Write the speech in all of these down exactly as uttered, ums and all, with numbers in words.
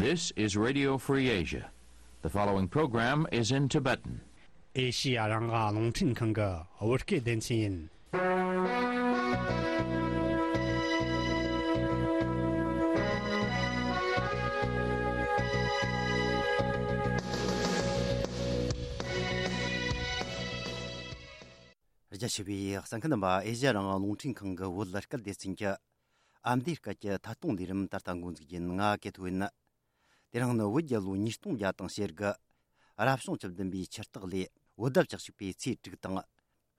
This is Radio Free Asia. The following program is in Tibetan. ཨེ་ཤི་ཡ་རང་དབང་རླུང་འཕྲིན་ཁང་གི་བོད་སྐད་སྡེ་ཚན་ཡིན། རྒྱ་ཆེ་བའི་གསན་མཁན་རྣམ་པ། ཨེ་ཤི་ཡ་རང་དབང་རླུང་འཕྲིན་ཁང་གི་བོད་སྐད་སྡེ་ཚན་གྱི་ཨ་མདོའི་སྐད་ཀྱི་ཐད་གཏོང་ལས་རིམ་ད་ལྟ་འགོ་འཛུགས་ཡིན། ང་ཀེ་ཐོ་ཡིན། དེ་རིང་ནི་བོད་རྒྱལ་ལོ་ཉིས་སྟོང་བརྒྱ་དང་ཞེ་དགུ། རབ་བྱུང་བཅུ་བདུན་པའི་ཆུ་སྟག་ལོའི་བོད་ཟླ་བཅུ་གཅིག་པའི་ཚེས་དྲུག་དང་།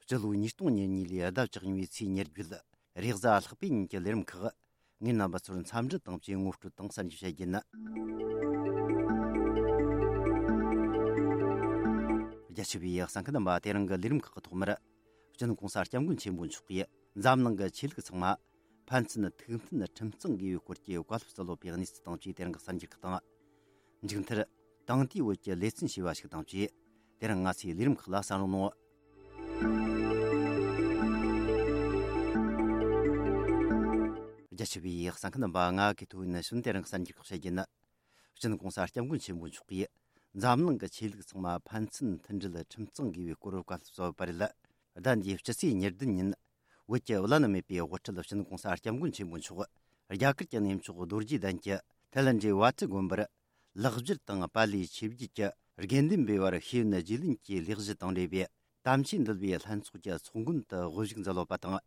སྤྱི་ལོ་ཉིས་སྟོང་ཉེར་གཉིས་ལོའི་ཟླ་བཅུ་གཉིས་པའི་ཚེས་ཉེར་བརྒྱད། རེས་གཟའ་ལྷག་པའི་ཉིན་གྱི་ལས་རིམ་ཁག་ངས་རྣམ་པ་ཚོར་འཚམས་འདྲི་དང་བཅས་ངོ་སྤྲོད་དང་གསར་འགྱུར་བཤད་རྒྱུ་ཡིན། རྒྱ་ཆེ་བའི་གསན་མཁན་རྣམ་པ། དེ་རིང་གི་ལས་རིམ་ཁག་གི་ཐོག་མར། སྤྱི་ནོར་༸གོང་ས་༸སྐྱབས་མགོན་ཆེན་པོ་མཆོག་གིས་འཛམ་གླིང་གི་ཆོས་ལུགས་ཚང་མ་ཕན་ཚུན་ཐུགས་མཐུན་ཁྲིམས་གཙང་དགོས་པའི་སྐོར་གྱི་བཀའ་སློབ་སྩལ་ལོ་པའི་གནས་ཚུལ་དང་བཅས་དེ་རིང་གི་གསར་འགྱུར་ཁག་དང་། མཇུག་མཐར། དེང་དུས་བོད་ཀྱི་ལེ་ཚན་ཞེས་པ་ཞིག་དང་བཅས། དེ་རིང་ང་ཚོའི་ལས་རིམ་ཁག་ལ་གསན་རོགས་གནང་། རྒྱ་ཆེ་བའི་གསན་མཁན་རྣམ་པ། ང་ཀེ་ཐོ་ཡིན། ནི་གཞོན་དེ་རིང་གསར་འགྱུར་ཁག་བཤད་རྒྱུ་ཡིན། སྤྱི་ནོར་༸གོང་ས་༸སྐྱབས་མགོན་ཆེན་པོ་མཆོག་གིས་འཛམ་གླིང་གི་ཆོས་ལུགས་ཚང་མ་ཕན་ཚུན་མཐུན་སྒྲིལ་ཁྲིམས་གཙང་དགོས་པའི་སྐོར་བཀའ་སློབ་སྩལ་བ་རེད། ཟླ་འདིའི་སྤྱི་ཚེས་ཉེར་བདུན་ཉིན། བོད་ཀྱི་བླ་ན་མེད་པའི་དབུ་ཁྲིད་སྤྱི་ནོར་༸གོང་ས་༸སྐྱབས་མགོན་ཆེན་པོ་མཆོག་རྒྱ་གར་གྱི་གནས་མཆོག་རྡོ་རྗེ་གདན་གྱི་ཐའི་ལན་ཌིའི་བྷ་ཏི་དགོན་པར་ལེགས་སྦྱར་དང་པཱ་ལིའི་ཆོས་བརྒྱུད་ཀྱི་དགེ་འདུན་པའི་བར་ཤེས་ཡོན་རྒྱུས་ལོན་གྱི་ལས་གཞི་དང་འབྲེལ་བའི་དམ་ཆོས་འདུལ་བའི་ལྷན་ཚོགས་ཀྱི་ཚོགས་མགོན་དུ་དབུ་བཞུགས་མཛད་ཡོད་པ་དང་།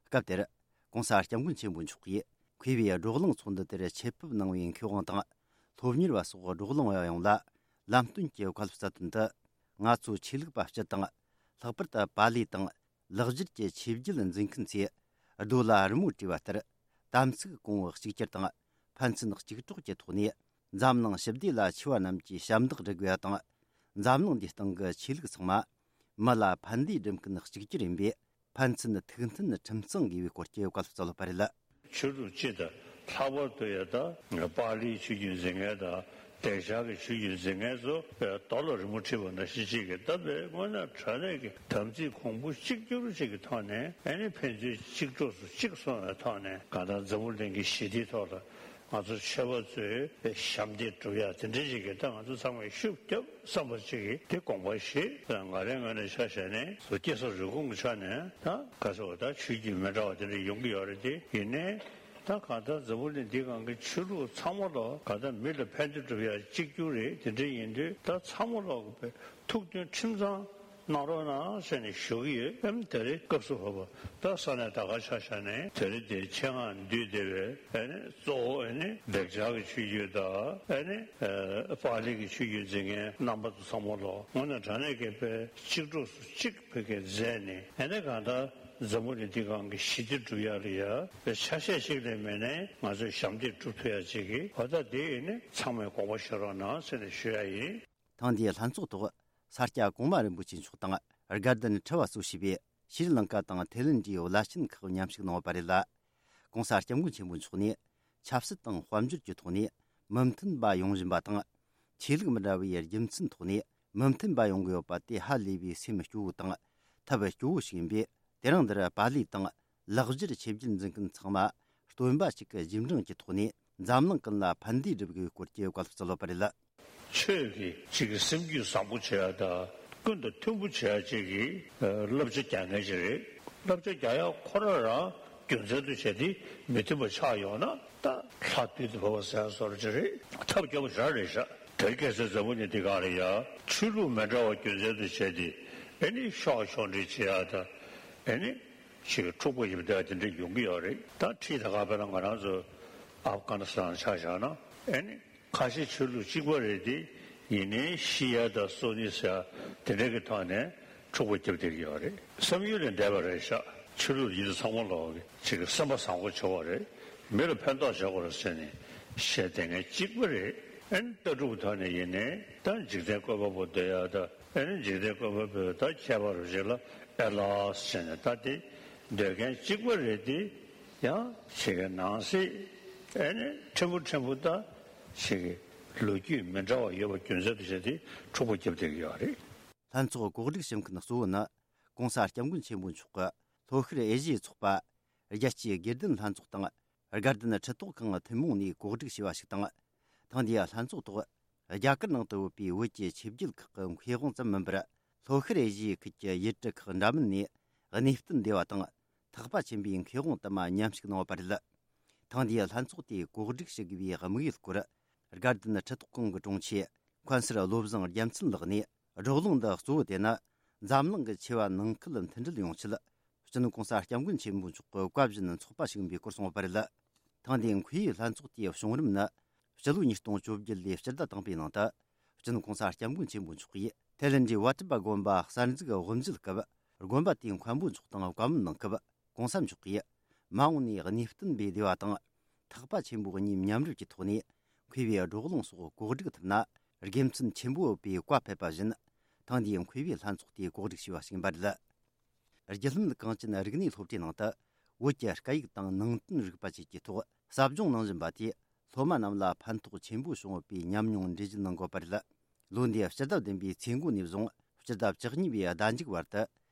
སྐབས་དེར་༸གོང་ས་༸སྐྱབས་མགོན་ཆེན་པོ་མཆོག་གིས་མཁས་པའི་བགྲོ་གླེང་ཚོགས་འདུ་དེར་ཆེད་ཕེབས་གནང་བའི་མཁས་དབང་དང་། སློབ་གཉེར་བ་སོགས་བགྲོ་གླེང་བ་ཡོངས་ལ་ལམ་སྟོན་གྱི་བཀའ་སློབ་སྩལ་དོན་དུ། ང་ཚོ་ཆོས་ལུགས་པ་སྤྱི་དང་། ལྷག་པར་དུ་པཱ་ལི་དང་ལེགས་སྦྱར་གྱི་ཆོས་བརྒྱུད་འཛིན་མཁན་ཚོས་རྡོ་ལ་རི་མོ་བྲིས་པ་ལྟར། དམ་ཚིག་གོང་བུ་གཅིག་གྱུར་དང་། ཕན་ཚུན་གཅིག་གྲོགས་ཀྱི་ཐོག་ནས་འཛམ་གླིང་ཞི་བདེ་ལ་ཆེ་བ་རྣམས་ཀྱི་ཞབས་འདེགས་སྒྲུབ་དགོས་པ་དང་། འཛམ་གླིང་འདིའི་སྟེང་གི་ཆོས་ལུགས་ཚང་མ་མི་ལ་ཕན་བདེ་སྒྲུབ་མཁན་གཅིག་གྱུར་ཡིན་པས། ཕན་ཚུན་ཐུགས་མཐུན་ཁྲིམས་གཙང་དགོས་པའི་སྐོར་གྱི་བཀའ་སློབ་སྩལ་ཡོད་པ་རེད། ཆོས་ལུགས་སྤྱི་དང་། ལྷག་པར་དུ་ཡང་ད་པཱ་ལིའི་ཆོས་བརྒྱུད་འཛིན་མཁན་དང་། བདེ་འཇགས་ཀྱི་ཆོས་བརྒྱུད་འཛིན་མཁན་ཚོ་རྡོ་ལ་རི་མོ་བྲིས་པ་ནང་བཞིན་ཅིག་གིས། ད་དཔེ་དངོས་གནས་དྲང་གནས་ཀྱི་དམ་ཚིག་གོང་བུ་གཅིག་གྱུར་ཅིག་གི་ཐོག་ནས། ཨ་ནི་ཕན་ཚུན་གཅིག་གྲོགས་སུ་གཅིག་སོང་བའི་ཐོག་ནས། གང་ལྟར་འཛམ་བུ་གླིང་གི་ཞི་བདེའི་ཐོག་ལ་ང་ཚོ་ཆོས་པ་ཚོས་ཞབས་འདེགས་སྒྲུབ་ཡ་དེ་འདྲ་ཅིག་གི། ད་ང་ཚོ་ཚང་མས་ཤུགས་རྒྱབ་བསམ་པ་ཅིག་གི་དེ་དགོངས་པ་བཞེས། ང་རའི་ངོས་ནས་ཆ་བཞག་ནས་བཟོ་སྐྱེ་ས་རུས་གོང་གི་ཆ་ནས། ད་ག་ཚོད་ད་ཆོས་བརྒྱུད་མི་འདྲ་བ་དེ་འདྲ་ཡོང་གི་ཡོད་རེད། དེ་ཡིན་ནའི་ད་གང་ལྟར་འཛམ་བུ་གླིང་འདིའི་སྒང་གི་ཆོས་ལུགས་ཚང་མ་ལོག་གང་ལྟར་མི་ལ་ཕན་བདེ་སྒྲུབ་ཡ་གཅིག་གྱུར་རེད། དེ་འདྲ་ཡིན་དུས་ད་ཚང་མ་ལོག་གི་ཐུགས་མཐུན་ཁྲིམས་གཙང་གནང་རོགས་གནང་ཟེར་ནས་ཞུ་གི་ཡོད། ཨེམ། དེ་རིང་སྐབས་སུ་བབ་པ་ད་ས་གནས་ད་ག་ཆ་བཞག་ནས་དེ་རིང་འདིར་ཆེད་མངགས་འདུས་བསྡད་པའི། ཨ་ནི་གཙོ་བོ་ཨ་ནི་བདེ་འཇགས་ཀྱི་ཆོས་བརྒྱུད་དང་། ཨ་ནི་ཨ་པཱ་ལི་གི་ཆོས་བརྒྱུད་འཛིན་མཁན་རྣམ་པ་ཚོ་ཚང་མ་ལོག་དངོས་གནས་དྲང་གནས་ཀྱི་དཔེ་གཅིག་གྲོགས་སུ་གཅིག་བོད་སྐད་མཛད་ནས། ཨ་ནི་གང་ལྟར་འཛམ་བུ་གླིང་འདིའི་སྒང་གི་ཞི་བདེ་སྒྲུབ་ཡ་ལ་ཡ་དཔེ་ཆ་ཤས་ཤིག་ལས་མེད་ནའི་ང་ཚོས་ཞབས་འདེགས་སྒྲུབ་ཐུབ་ཡ་ཅིག་གི། འོ་ད་དེ་ཡིན་ནི་ཚང་མས་དགོངས་པ་བཞེས་རོགས་གནང་ཟེར་ནས་ཞུ་ཡ་ཡིན། ཐེངས་འདིའི་ལྷན་ཚོགས་ཐོག་ས་སྐྱ་གོང་མ་རིན་པོ་ཆེ་མཆོག་དང་། དགའ་ལྡན་ཁྲི་པ་གཙོས་བྱས་པའི་ཤྲི་ལངྐ་དང་ཐའི་ལེན་ཌིའི་བླ་ཆེན་ཁག་མཉམ་ཞུགས་གནང་བ་རེད་ལ། ྋགོང་ས་ྋསྐྱབས་མགོན་ཆེན་པོ་མཆོག་ནས་ཆབ་སྲིད་དང་དཔལ་འབྱོར་གྱི་ཐོག་ནས་མི་མཐུན་པ་ཡོང་བཞིན་པ་དང་། ཆོས་ལུགས་མི་འདྲ་བའི་རྒྱུ་མཚན་ཐོག་ནས་མི་མཐུན་པ་ཡོང་གི་ཡོད་པ་དེ་ཧ་ལས་པའི་སེམས་སྐྱོ་བོ་དང་ཐབས་སྐྱོ་བོ་ཞིག་ཡིན་པས། དེ་རིང་འདིར་པཱ་ལི་དང་ལེགས་སྦྱར་ཆོས་བརྒྱུད་འཛིན་མཁན་ཚང་མ་སྟོན་པ་གཅིག་གི་རྗེས་འབྲང་གི་ཐོག་ནས་འཛམ་གླིང་ཀུན་ལ་ཕན་བདེ་སྒྲུབ་དགོས་སྐོར་གྱི་བཀའ་སློབ་སྩལ་ཡོད་པ་རེད། ཆོས་ཀྱི་གཅིག་གི་སེམས་རྒྱུད་བཟང་པོ་བྱེད་ཡ་དང་། ཀུན་ཏུ་མཐུན་པོ་བྱེད་ཡ་གཅིག་གི་བསླབ་བྱ་རྒྱག་མཁན་ཅིག་རེད། བསླབ་བྱ་རྒྱག་ཡ་ཁོ་རང་རང་རྒྱུ་མཚན་དུ་བྱས་ཏེ་མི་མཐུན་པ་ཆགས་ཡོང་ན། ད་ལྷ་བདུད་དུ་བབས་པ་ཟེར་ཡ་བཟོ་འདྲ་ཅིག་རེད། ཐབས་སྐྱོ་པོ་ཞེ་དྲག་རེད་ཤག་དེར་ཁ་སང་འཛམ་བུ་གླིང་འདིའི་སྒང་ལ་ཡ་ཆོས་ལུགས་མི་འདྲ་བ་རྒྱུ་མཚན་དུ་བྱས་ཏེ། ཨ་ནི་ཤོག་ཤོག་འདྲེ་བྱེད་ཡ་དང་། ཨ་ནི་ཅིག་འཁྲུག་པ་ཞིག་བསྡད་ཡ་དེ་འདྲ་ཡོང་གི་ཡོད་རེད། ད་ཁྲིད་ད་ག་དཔེར་ན་ང་རང་ཚོ་ཨབ་གྷ་ནི་སི་ཐན་ཆ་བཞག་ན། ཨ་ནི་ཁ་ཆེ་ཆོས་ལུགས་གཅིག་པ་རེད་དེ། ཡིན་ནའི་ཤི་ཡ་དང་གསོན་ནི་ཟེར་ཡ་དེ་འདྲ་གི་ཐོག་ནས་འཁྲུག་པ་བརྒྱབ་བསྡད་ཀྱི་ཡོད་རེད། བསམ་ཡུལ་ལས་འདས་པ་རེད་ཤག་ཆོས་ལུགས་ཡིན་ཚང་མ་ལོག་གི་ཅིག་གི་སེམས་པ་བཟང་པོ་བྱེད་དགོས་རེད། མི་ལ་ཕན་ཐོགས་བྱེད་དགོས་རེད་ཟེར་ནས་བཤད་བསྡད་མཁན་གཅིག་པ་རེད། ཨ་ནི་ལྟ་གྲུབ་ཐོག་ནས་ཡིན་ནའི་ད་འཇིག་རྟེན་བཀོད་པ་པོ་འདོད་ཡ་དང་། ཨ་ནི་འཇིག་རྟེན་བཀོད་པ་པོས་ད་ཁྱད་པར་རུ་ཞིག་ལ་ཨེ་ལགས་ཟེར་ནས་ད་དེ་འདོད་མཁན་གཅིག་པ་རེད་དེ། ཡང་ཞིག་གི་ནང་གསེས་ཨ་ནི་ཕྲན་བུ་ཕྲན་བུ་ད་ཞིག་གི་ལོ་རྒྱུས་མི་འདྲ་བ་ཡོད་པ་རྒྱུ་མཚན་དུ་བྱས་ཏེ་འཁྲུག་པ་བརྒྱབ་བསྡད་ཀྱི་ཡོད་རེད། ལྷན་ཚོགས་གོ་སྒྲིག་ཞུ་མཁན་གཙོ་བོ་ནི་༸གོང་ས་༸སྐྱབས་མགོན་ཆེན་པོ་མཆོག་གི་ལྷོ་ཤར་ཨེ་ཤི་ཡའི་ཚོགས་པ། རྒྱལ་སྤྱིའི་དགེ་ལྡན་ལྷན་ཚོགས་དང་། དགའ་ལྡན་ཁྲི་ཐོག་ཁང་ཐུན་མོང་ནས་གོ་སྒྲིག་བྱས་པ་ཞིག་དང་། ཐེངས་འདིའི་ལྷན་ཚོགས་ཐོག་རྒྱ་གར་ནང་དུ་ཡོད་པའི་བོད་ཀྱི་ཆོས་བརྒྱུད་ཁག་གི་མཁས་དབང་ཙམ་མིན་པར། ལྷོ་ཤར་ཨེ་ཤི་ཡའི་ཁུལ་གྱི་ཡུལ་གྲུ་ཁག་འདྲ་མིན་ནས་གནས་བརྟན་སྡེ་བ་དང་། ཐེག་པ་ཆེན་པོའི་མཁས་དབང་དུ་མ་མཉམ་ཞུགས་གནང་བ་རེད། ཐེངས་འདིའི་ལྷན་ཚོགས་དེ་གོ་སྒྲིག་ཞུ་དགོས་པའི་དམིགས་ཡུལ་སྐོར། དགའ་ལྡན་ཁྲི་ཐོག་ཁང་གི་དྲུང་ཆེ་མཁན་ཟུར་བློ་བཟང་རྒྱལ་མཚན་ལགས་ནས། བགྲོ་གླེང་འདི་གཙོ་བོ་དེ་ནི། འཛམ་གླིང་གི་ཆེ་བ་ནང་ཁུལ་མཐུན་སྒྲིལ་ཡོང་ཆེད། སྤྱི་ནོར་༸གོང་ས་༸སྐྱབས་མགོན་ཆེན་པོ་མཆོག་གི་བཀའ་བཞིན་ཚོགས་པ་ཞུགས་པའི་སྐོར་གསུངས་པ་རེད། ཐེངས་འདིའི་མཁས་པའི་ལྷན་ཚོགས་དེའི་བྱུང་རིམ་ནི། སྤྱི་ལོ་ཉིས་སྟོང་བཅོ་བརྒྱད་ལོའི་སྤྱི་ཟླ་དང་པོའི་ནང་དུ། སྤྱི་ནོར་༸གོང་ས་༸སྐྱབས་མགོན་ཆེན་པོ་མཆོག་གིས་ཐའི་ལེན་ཌི་ཝ་ཊི་པ་དགོན་པ་གསར་འཛུགས་དབུ་མཛད་སྐབས། དགོན་པ་དེའི་མཁན་པོ་མཆོག་དང་བཀའ་མོལ་གནང་སྐབས། ༸གོང་ས་མཆོག་གིས་མ་འོངས་ནས་གནས་བརྟན་པའི་སྡེ་བ་དང་། ཐེག་པ་ཆེན་པོ་གཉིས་མཉམ་རུབ་ཀྱི་ཐོག་ནས་མཁས་པའི་བགྲོ་གླེང་སོགས་གོ་སྒྲིག་ཐུབ་ན། དགེ་མཚན་ཆེན་པོ་ཡོད་པའི་བཀའ་ཕེབས་པ་བཞིན། ཐེངས་འདིའི་མཁས་པའི་ལྷན་ཚོགས་དེ་གོ་སྒྲིག་བྱས་པ་ཞིག་ཡིན་པ་རེད། རྒྱུད་ལམ་གངས་ཅན་རིག་གནས་སློབ་གྲྭའི་ནང་དུ། བོད་ཀྱི་སྐད་ཡིག་དང་ནང་བསྟན་རིག་པ་བཅས་ཀྱི་ཐོག་ཟབ་སྦྱོང་གནང་བཞིན་པ་དེས། སློབ་མ་རྣམས་ལ་ཕན་ཐོགས་ཆེན་པོ་བྱུང་ཡོད་པའི་ཉམས་མྱོང་འགྲེལ་བརྗོད་གནང་དགོས་པ་རེད། ལོ་འདིའི་སྤྱི་ཟླ་བདུན་པའི་ཚེས་འགོ་ནས་བཟུང་སྤྱི་ཟླ་བཅུ་གཉིས་པའི་ཟླ་མཇུག་བར་དུ།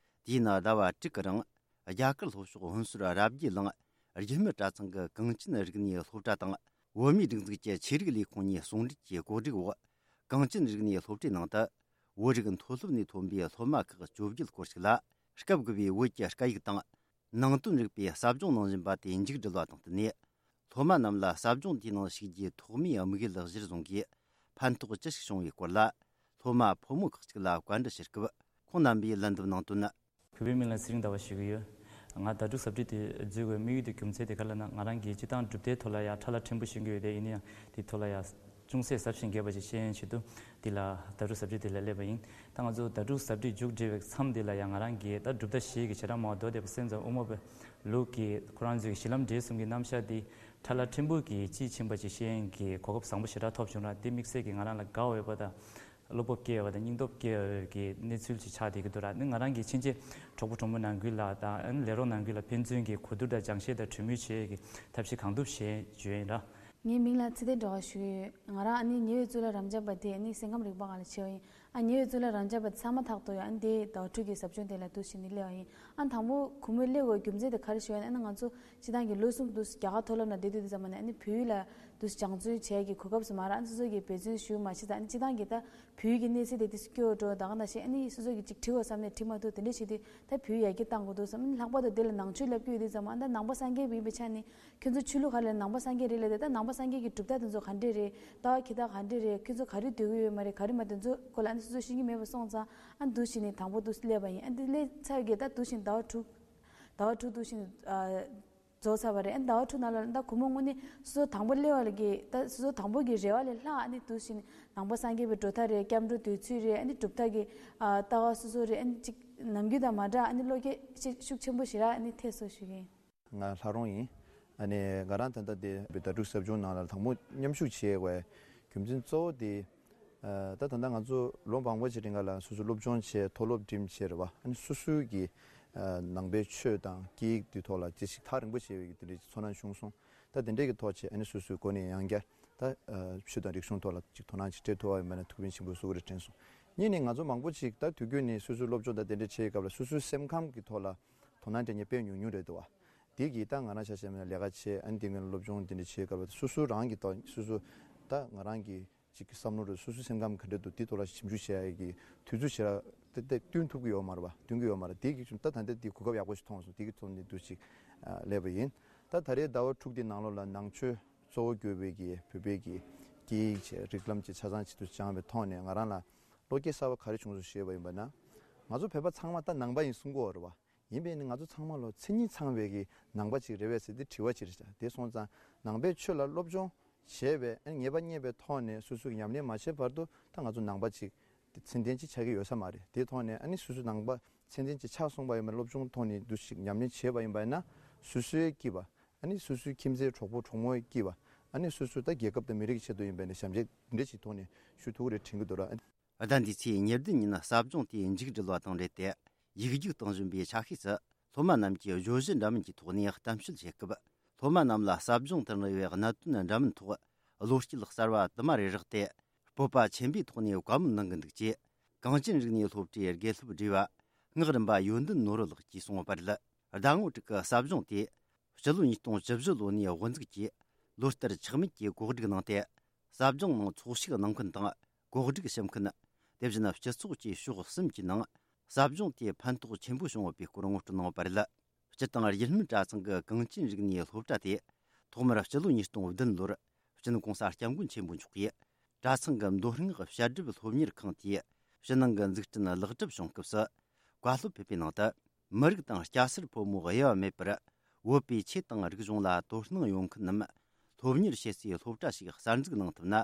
དུས་ཡུན་ཟླ་བ་དྲུག་གི་རིང་། རྒྱ་གར་ལྷོ་ཕྱོགས་ཧོན་སུར་རབ་རྒྱས་གླིང་རྒྱུད་སྨད་གྲྭ་ཚང་གི་གངས་ཅན་རིག་གནས་སློབ་གྲྭ་དང་། བོད་མིའི་སྒྲིག་འཛུགས་ཀྱི་ཆོས་རིག་ལས་ཁུངས་གཉིས་ཟུང་འབྲེལ་གྱིས་གོ་སྒྲིག་འོག་གངས་ཅན་རིག་གནས་སློབ་གྲྭའི་ནང་དུ། བོད་རིགས་མཐོ་སློབ་ནས་ཐོན་པའི་སློབ་མ་ཁག་བཅོ་བརྒྱད་སྐོར་ཞིག་ལ། སྐབས་དགུ་པའི་བོད་ཀྱི་སྐད་ཡིག་དང་། ནང་དོན་རིག་པའི་ཟབ་སྦྱོང་གནང་བཞིན་པ་དེ་མཇུག་བསྒྲིལ་བ་དང་བསྟུན་ནས། སློབ་མ་རྣམས་ལ་ཟབ་སྦྱོང་དེའི་ནང་ཞུགས་རྒྱུའི་ཐོག་མའི་དམིགས་ཡུལ་གཞིར་བཟུང་གིས། ཕན་ཐོགས་ཅི་ཞིག་བྱུང་བའི་སྐོར་ལ། སློབ་མ་ཕོ་མོ་ཁག་ཅིག་ལ་བཀའ་འདྲི་ཞུ་སྐབས། ཁོང་རྣམ་པས་ལན་འདེབས་གནང་དོན། བོད་པའི་མིང་ལ་ཚེ་རིང་ཟླ་བ་ཞུ་གི་ཡོད། ང་ཟླ་དྲུག་གཟབ་སྦྲིད་དེ་འཛུལ་དགོས་དམིགས་ཡུལ་དེ་རྒྱུ་མཚན་དེ་ག་ལ་ན། ང་རང་གི་སྤྱི་བཏང་གྲུབ་མཐའི་ཐོག་ལ་ཡང་ཕྲ་ལ་ཕྲན་བུ་ཤེས་ཀྱི་ཡོད་དེ། ཡིན་ན་ཡང་དེ་ཐོག་ལ་ཡང་ཅུང་ཟད་ཟབ་ཞིང་རྒྱས་པ་ཞིག་ཤེས་ཡོན་ཆེད་དུ་འདི་ལ་ཟླ་དྲུག་གཟབ་སྦྲིད་དེ་ལ་སླེབས་པ་ཡིན། ད་ང་ཚོ་ཟླ་དྲུག་གཟབ་སྦྲིད་མཇུག་སྒྲིལ་བའི་མཚམས་འདི་ལ་ཡང་ང་རང་གིས་ད་གྲུབ་མཐའ་བཞི་གི་བྱེ་བྲག་སྨྲ་བ་མདོ་སྡེ་པ་སེམས་ཙམ་དབུ་མ་པའི་ལུགས་ཀྱི་ཁོ་རང་ཚོའི་གཞི་ལམ་འབྲས་གསུམ་གྱི་རྣམ་གཞག་འདི་ཕྲ་ལ་ཕྲན་བུ་གིས་དཔྱིས་ཕྱིན་པ་ཅིག་ཤེས་ཡོན་གྱི་གོ་སྐབས་བཟང་པོ་ཞེ་དྲག་ཐོབ་བྱུང་ར། འདི་དམིགས་བསལ་གྱིས་ང་རང་ལ་དགའ་འོས་པ་དང་། བློ་སྤོབས་སྐྱེ་བ་དང་སྙིང་སྟོབས་སྐྱེ་བའི་གི་གནས་ཚུལ་ཅིག་ཆགས་བསྡད་ཀྱི་འདུག་ར། ནི་ང་རང་གི་ཕྱིན་ཆད་གྲོགས་པོ་གྲོགས་མོ་ནང་ཁུལ་ལ་དང་། ཨ་ནི་ལས་རོགས་ནང་ཁུལ་ལ་ཕན་ཚུན་གྱི་གོ་བསྡུར་དང་སྦྱང་བཤད་དང་གྲོས་མོལ་བྱེད་ཀྱི་ཐབས་ཤེས་གང་ཐུབ་བྱེད་བརྗོད་ཡིན་ར། ངའི་མིང་ལ་ཚེ་བརྟན་སྒྲོལ་དཀར་ཞུ་གི་ཡོད། ང་རང་ཨ་ནི་ཉེ་བའི་གཙུག་ལག་རབ་འབྱམས་པ་དེ་ཨ་ནི་སེམས་ཁམས་རིག་པ་སྒང་ལ་ཕྱེ་བ་ཡིན། ཨ་ཉེ་བའི་གཙུག་ལག་རབ་འབྱམས་པ་ཚང་མ་ཐག་ཐོག་ཡོད། ཨ་ནི་དེ་ཟླ་བ་དྲུག་གི་ཟབ་སྦྱོང་དེ་ལ་འདུག་བྱས་ནས་སླེབས་པ་ཡིན། ཨ་ནི་དང་པོ་གུས་མོས་སླེབས་དགོས་རྒྱུ་མཚན་དེ་ག་རེ་ཞུ་ཡ་ཡིན་ན། ཨ་ནི་ང་ཚོ་སྤྱི་བཏང་གི་ལོ་གསུམ་དུ་རྒྱ་གར་མཐོ་སློབ་ནང་བསྡད་དུས་དེ་ཙམ་པ་ནས་ཨ་ནི་བོད་ཡིག་ལ་དུ་སྦྱང་བརྩོན་བྱེད་ཀྱི་གོ་སྐབས་སུ་མ་རག་ཨ་ནི་སོ་སོ་གིས་འབད་བརྩོན་ཞུ་མ་ཤེས་ཙང་། ཨ་ནི་སྤྱི་བཏང་གི་ད་བོད་ཡིག་གི་གནས་ཚད་དེ་ཏིས་སྐྱོ་བོ་འགྲོ། ད་ག་ནང་བཞིན་ཨ་ནི་སོ་སོ་གིས་ཅིག་བྲིས་དགོས་བསམ་ནས་བྲིས་མ་ཐུབ། དེ་འདྲ་བྱེད་དུས་ད་བོད་ཡིག་ཡར་རྒྱས་གཏང་དགོས་འདུག་བསམ། ཨ་ནི་ལྷག་པར་དུ་དེ་ལ་ནང་ཆོས་བསླབ་ཀྱི་ཡོད་དུས་ཙམ། ཨ་ནི་ད་ནང་པ་སངས་རྒྱས་པ་ཡིན་པའི་ཆ་ནས་ཁྱོད་ཚོ་ཆོས་ལུགས་ག་རེ་ལ་ནང་པ་སངས་རྒྱས་རེད་ལབ་དུས། ད་ནང་པ་སངས་རྒྱས་ཀྱི་གྲུབ་མཐའ་དེ་ཚོ་ག་འདྲས་རེད། ལྟ་བ་འཁྱེར་སྟངས་ག་འདྲས་རེད། ཁྱོད་ཚོ་ག་རེ་འདོད་ཀྱི་ཡོད་མ་རེད། ག་རེ་མ་འདོད། ཚོ་སྐོར་ལ་ཨ་ནི་སོ་སོ་ཤེས་ཀྱི་མེད་པ་སོང་ཙང་། ཨ་ནི་འདུག་བྱས་ནས་དང་པོ་འདུག་སླེབས་པ་ཡིན། ཨ་ནི་འདི་སླེབས་ཚར་གི་ད་འདུག་བྱས་ནས་ཟླ་བ་དྲུག་ཟླ་བ་དྲུག་འདུག་བྱས་ནས་ཨ། རྫོགས་ཚར་བ་རེད། ཨ་ནི་ཟླ་བ་དྲུག་ནང་ལ་ད་གུས་མོ་དངོས་གནས་སོ་སོ་དང་པོ་སླེབས་པ་ལ་གི་ད་སོ་སོ་དང་པོ་གི་རེ་བ་ལས་ལྷག་ཨ་ནི་འདུག་བྱས་ནས་ནང་པ་སངས་རྒྱས་པའི་འགྲོ་ཐབས་རེད། སྐྱབས་འགྲོ་འདོད་ཚུལ་རེད། ཨ་ནི་གྲུབ་མཐའ་གི་ཨ་ལྟ་བ་སོ་སོ་རེད། ཨ་ནི་ཅིག་ནམ་རྒྱུན་དང་མ་འདྲ་ཨ་ནི་བློ་སྐྱེད་ཤུགས་ཤུགས་ཆེན་པོ་ཞིག་རག་ཨ་ནི་ཐེབས་སོང་ཞུ་གི་ཡིན། ང་ལྷ་རོང་ཡིན། ཨ་ནི་ང་རང་ད་ལྟ་དེ་ཟླ་དྲུག་ཟབ་སྦྱོང་ནང་ལ་དང་པོ་མཉམ་ཞུགས་བྱེད་དགོས་རྒྱུ་མཚན་གཙོ་བོ་དེ། ཨ་ད་ད་ལྟ་ང་ཚོ་ལོ་མང་པོ་ཅིག་རིང་ག་ལ་སོ་སོ་སློབ་སྦྱོང་བྱས། མཐོ་སློབ་འགྲིམས་བྱས་རེད་བ། ཨ་ནི་སོ་སོའི་གི་ཨ་ནང་པའི་ཆོས་དང་སྐད་ཡིག་དེ་ཐོག་ལ་ཅི་ཞིག་ཐག་རིང་པོ་བྱས་པའི་གི་དེ་འདྲའི་ཚོར་སྣང་བྱུང་སོང་། ད་དེ་འདྲའི་གི་ཐོག་བྱས་ཨ་ནི་སོ་སོའི་སྒོ་ནས་ཡང་བསྐྱར་ད་ཨ་ཆོས་དང་རིག་གཞུང་ཐོག་ལ་ཅིག་དོ་སྣང་ཅིག་སྤྲད་ཐུབ་པ་ཡིན་པ་ན་ཐུགས་ཕན་ཆེན་པོ་གསོས་ཀྱི་རེད་དྲན་སོང་། གཉིས་ནས་ང་ཚོ་མང་པོ་ཅིག་ད་དུས་རྒྱུན་ནས་སོ་སོའི་སློབ་སྦྱོང་དང་དེ་འདྲ་བྱེད་སྐབས་ལ་སོ་སོའི་སེམས་ཁམས་ཀྱི་ཐོག་ལ་དོ་སྣང་སྤྲད་མཁན་དཔེ་ཉུང་ཉུང་རེད་འདུག་བ། དེ་གིས་ད་ང་རང་ཆ་བཞག་ན་ལས་ཀ་བྱེད། ཨ་ནི་དེ་སྔོན་སློབ་སྦྱོང་དེ་འདྲ་བྱེད་སྐབས་ལ་སོ་སོ་རང་གི་ཐོག་སོ་སོ་ད་ང་རང་གི་ཅིག་གི་བསམ་བློ་རེད། སོ་སོའི་སེམས་ཁམས་ག་འདྲ་འདུག་དེ་ཐོག་ལ་ཞིབ་འཇུག་བྱེད་ཡ་གི་དུས་ཚོད་ཞེ་དྲག་ཏག་ཏག་བསྟུན་ཐུབ་ཀྱི་ཡོད་མ་རེད་པ། བསྟུན་གྱི་ཡོད་མ་རེད། དེ་གི་ད་ད་ལྟ་དེ་གོ་སྐབས་ཡག་པོ་ཞིག་མཐོང་སོང་། དེ་གི་ཐོག་ནས་འདུག་ཅིག་ཨ་སླེབས་པ་ཡིན། ད་ད་རེས་ཟླ་བ་དྲུག་དེ་ནང་ལོགས་ལ་ནང་ཆོས་གཙོ་བོ་གྱུར་པའི་གི་བོད་པའི་གི་སྐད་ཡིག་བྱས། རིགས་ལམ་བྱས། ཆ་ཚང་བྱས་འདུག་སྦྱངས་པའི་ཐོག་ནས་ང་རང་ལ་བློ་སྐྱེད་གསར་པ་ག་རེ་བྱུང་སོང་ཞུས་པ་ཡིན་པ་ན། ང་ཚོ་བོད་པ་ཚང་མ་ད་ནང་པ་ཡིན་གསུང་གི་ཡོད་རེད་པ། ཡིན་པས་ནི་ང་ཚོ་ཚང་མ་ལོ་མཚན་ཉིད་ཚང་བའི་གི་ནང་པ་ཅིག་རེད་པས་ཟེར་ཏེ་དྲི་བ་ཅིག་རེད་བྱ། དེ་སོང་ཙང་ནང་པའི་ཆོས་ལ་སློབ་སྦྱོང་བྱས་པས། ཨ་ནི་ངེས་པ་རྙེད་པའི་ཐོག་ནས་སོ་སོ་གི་ཉམས་ལེན་མ་བྱས་བར་དུ་ད་ང་ཚོ་ནང་པ་ཅིག་ཚད་ལྡན་ཅིག་ཆགས་ཀྱི་ཡོད་ས་མ་རེད། དེའི་ཐོག་ནས་ཨ་ནི་སོ་སོ་ནང་པ་ཚད་ལྡན་ཅིག་ཆགས་སོང་བ་ཡིན་པ་ན། སློབ་སྦྱོང་ཐོག་ནས་འདུ་ཞིག་ཉམས་ལེན་བྱས་པ་ཡིན་པ་ཡིན་ན། སོ་སོའི་སྐྱིད་པ། ཨ་ནི་སོ་སོའི་ཁྱིམ་མཚེས་གྲོགས་པོ་གྲོགས་མོའི་སྐྱིད་པ། ཨ་ནི་སོ་སོ་ད་རྒྱལ་ཁབ་དང་མི་རིགས་ཀྱི་ཆེད་དུ་ཡིན་པ་ཡིན་ན་ཞབས་འདེགས་འདྲ་ཞིག་ཐོག་ནས་ཞུ་ཐུབ་ཀྱི་རེད་དྲན་གྱི་འདུག་ར། ཟླ་འདིའི་ཚེས་ཉེར་བདུན་ཉིན་ཟབ་སྦྱོང་དེ་མཇུག་སྒྲིལ་བ་དང་འབྲེལ་ཏེ། ཡིག་རྒྱུགས་གཏོང་བཞིན་པའི་ཆ་ཤས་སུ་སློབ་མ་རྣམས་ཀྱིས་བརྗོད་གཞི་འདྲ་མིན་གྱི་ཐོག་ནས་གཏམ་བཤད་བྱེད་སྐབས། སློབ་མ་རྣམས་ལ་ཟབ་སྦྱོང་དུ་གནང་བའི་གནད་དོན་འདྲ་མིན་ཐོག་བློ་སྐྱེད་གསར་བ་དུ་མ་རེ་རེག་སྟེ། སྤོབས་པ་ཆེན་པོའི་ཐོག་ནས་བཀའ་མོལ་གནང་གི་འདུག་ཅེས། གངས་ཅན་རིག་གནས་སློབ་གྲྭའི་དགེ་སློབ་སྒྲིག་པ་སྔགས་རམས་པ་ཡོན་ཏན་ནོར་བུ་ལགས་ཀྱིས་གསུངས་པ་རེད། ཟླ་ངོ་དྲུག་གི་ཟབ་སྦྱོང་དེ་སྤྱི་ལོ་ཉིས་སྟོང་བཅུ་བཞི་ལོ་ནས་དབུ་འཛུགས་ཀྱིས་ལོ་ལྟར་ཆག་མེད་ཀྱིས་གོ་སྒྲིག་གནང་སྟེ། ཟབ་སྦྱོང་ནང་ཚོགས་ཞུགས་གནང་མཁན་དང་གོ་སྒྲིག་ཞུ་མཁན། དེ་བཞིན་སྤྱི་ཚོགས་ཀྱི་ཕྱོགས་གསུམ་གྱི་ནང་ཟབ་སྦྱོང་དེ་ཕན་ཐོགས་ཆེན་པོ་བྱུང་ཡོད་པའི་སྐོར་ངོ་སྤྲོད་གནང་བ་རེད། སྤྱིར་བཏང་རྒྱུད་སྨད་གྲྭ་ཚང་གི་གངས་ཅན་རིག་གནས་སློབ་གྲྭ་དེ་ཐོག་མར་སྤྱི་ལོ་ཉིས་སྟོང་བདུན་ལོར་སྤྱི་ནོར་༸གོང་ས་༸སྐྱབས་མགོན་ཆེན་པོ་མཆོག་གིས་གྲྭ་ཚང་གི་མདོ་སྔགས་བཤད་སྒྲུབ་སློབ་གཉེར་ཁང་དེའི་ཕྱི་ནང་གི་འཛུགས་སྐྲུན་ལེགས་གྲུབ་བྱུང་སྐབས་སུ། བཀའ་སློབ་ཕེབས་པའི་ནང་དུ། མི་རིགས་དང་སྐྱ་སེར་ཕོ་མོ་དབྱེ་བ་མེད་པར་བོད་པའི་ཆོས་དང་རིག་གཞུང་ལ་དོ་སྣང་ཡོང་མཁན་རྣམས་སློབ་གཉེར་བྱེད་སའི་སློབ་གྲྭ་ཞིག་གསར་འཛུགས་གནང་ཐུབ་ན།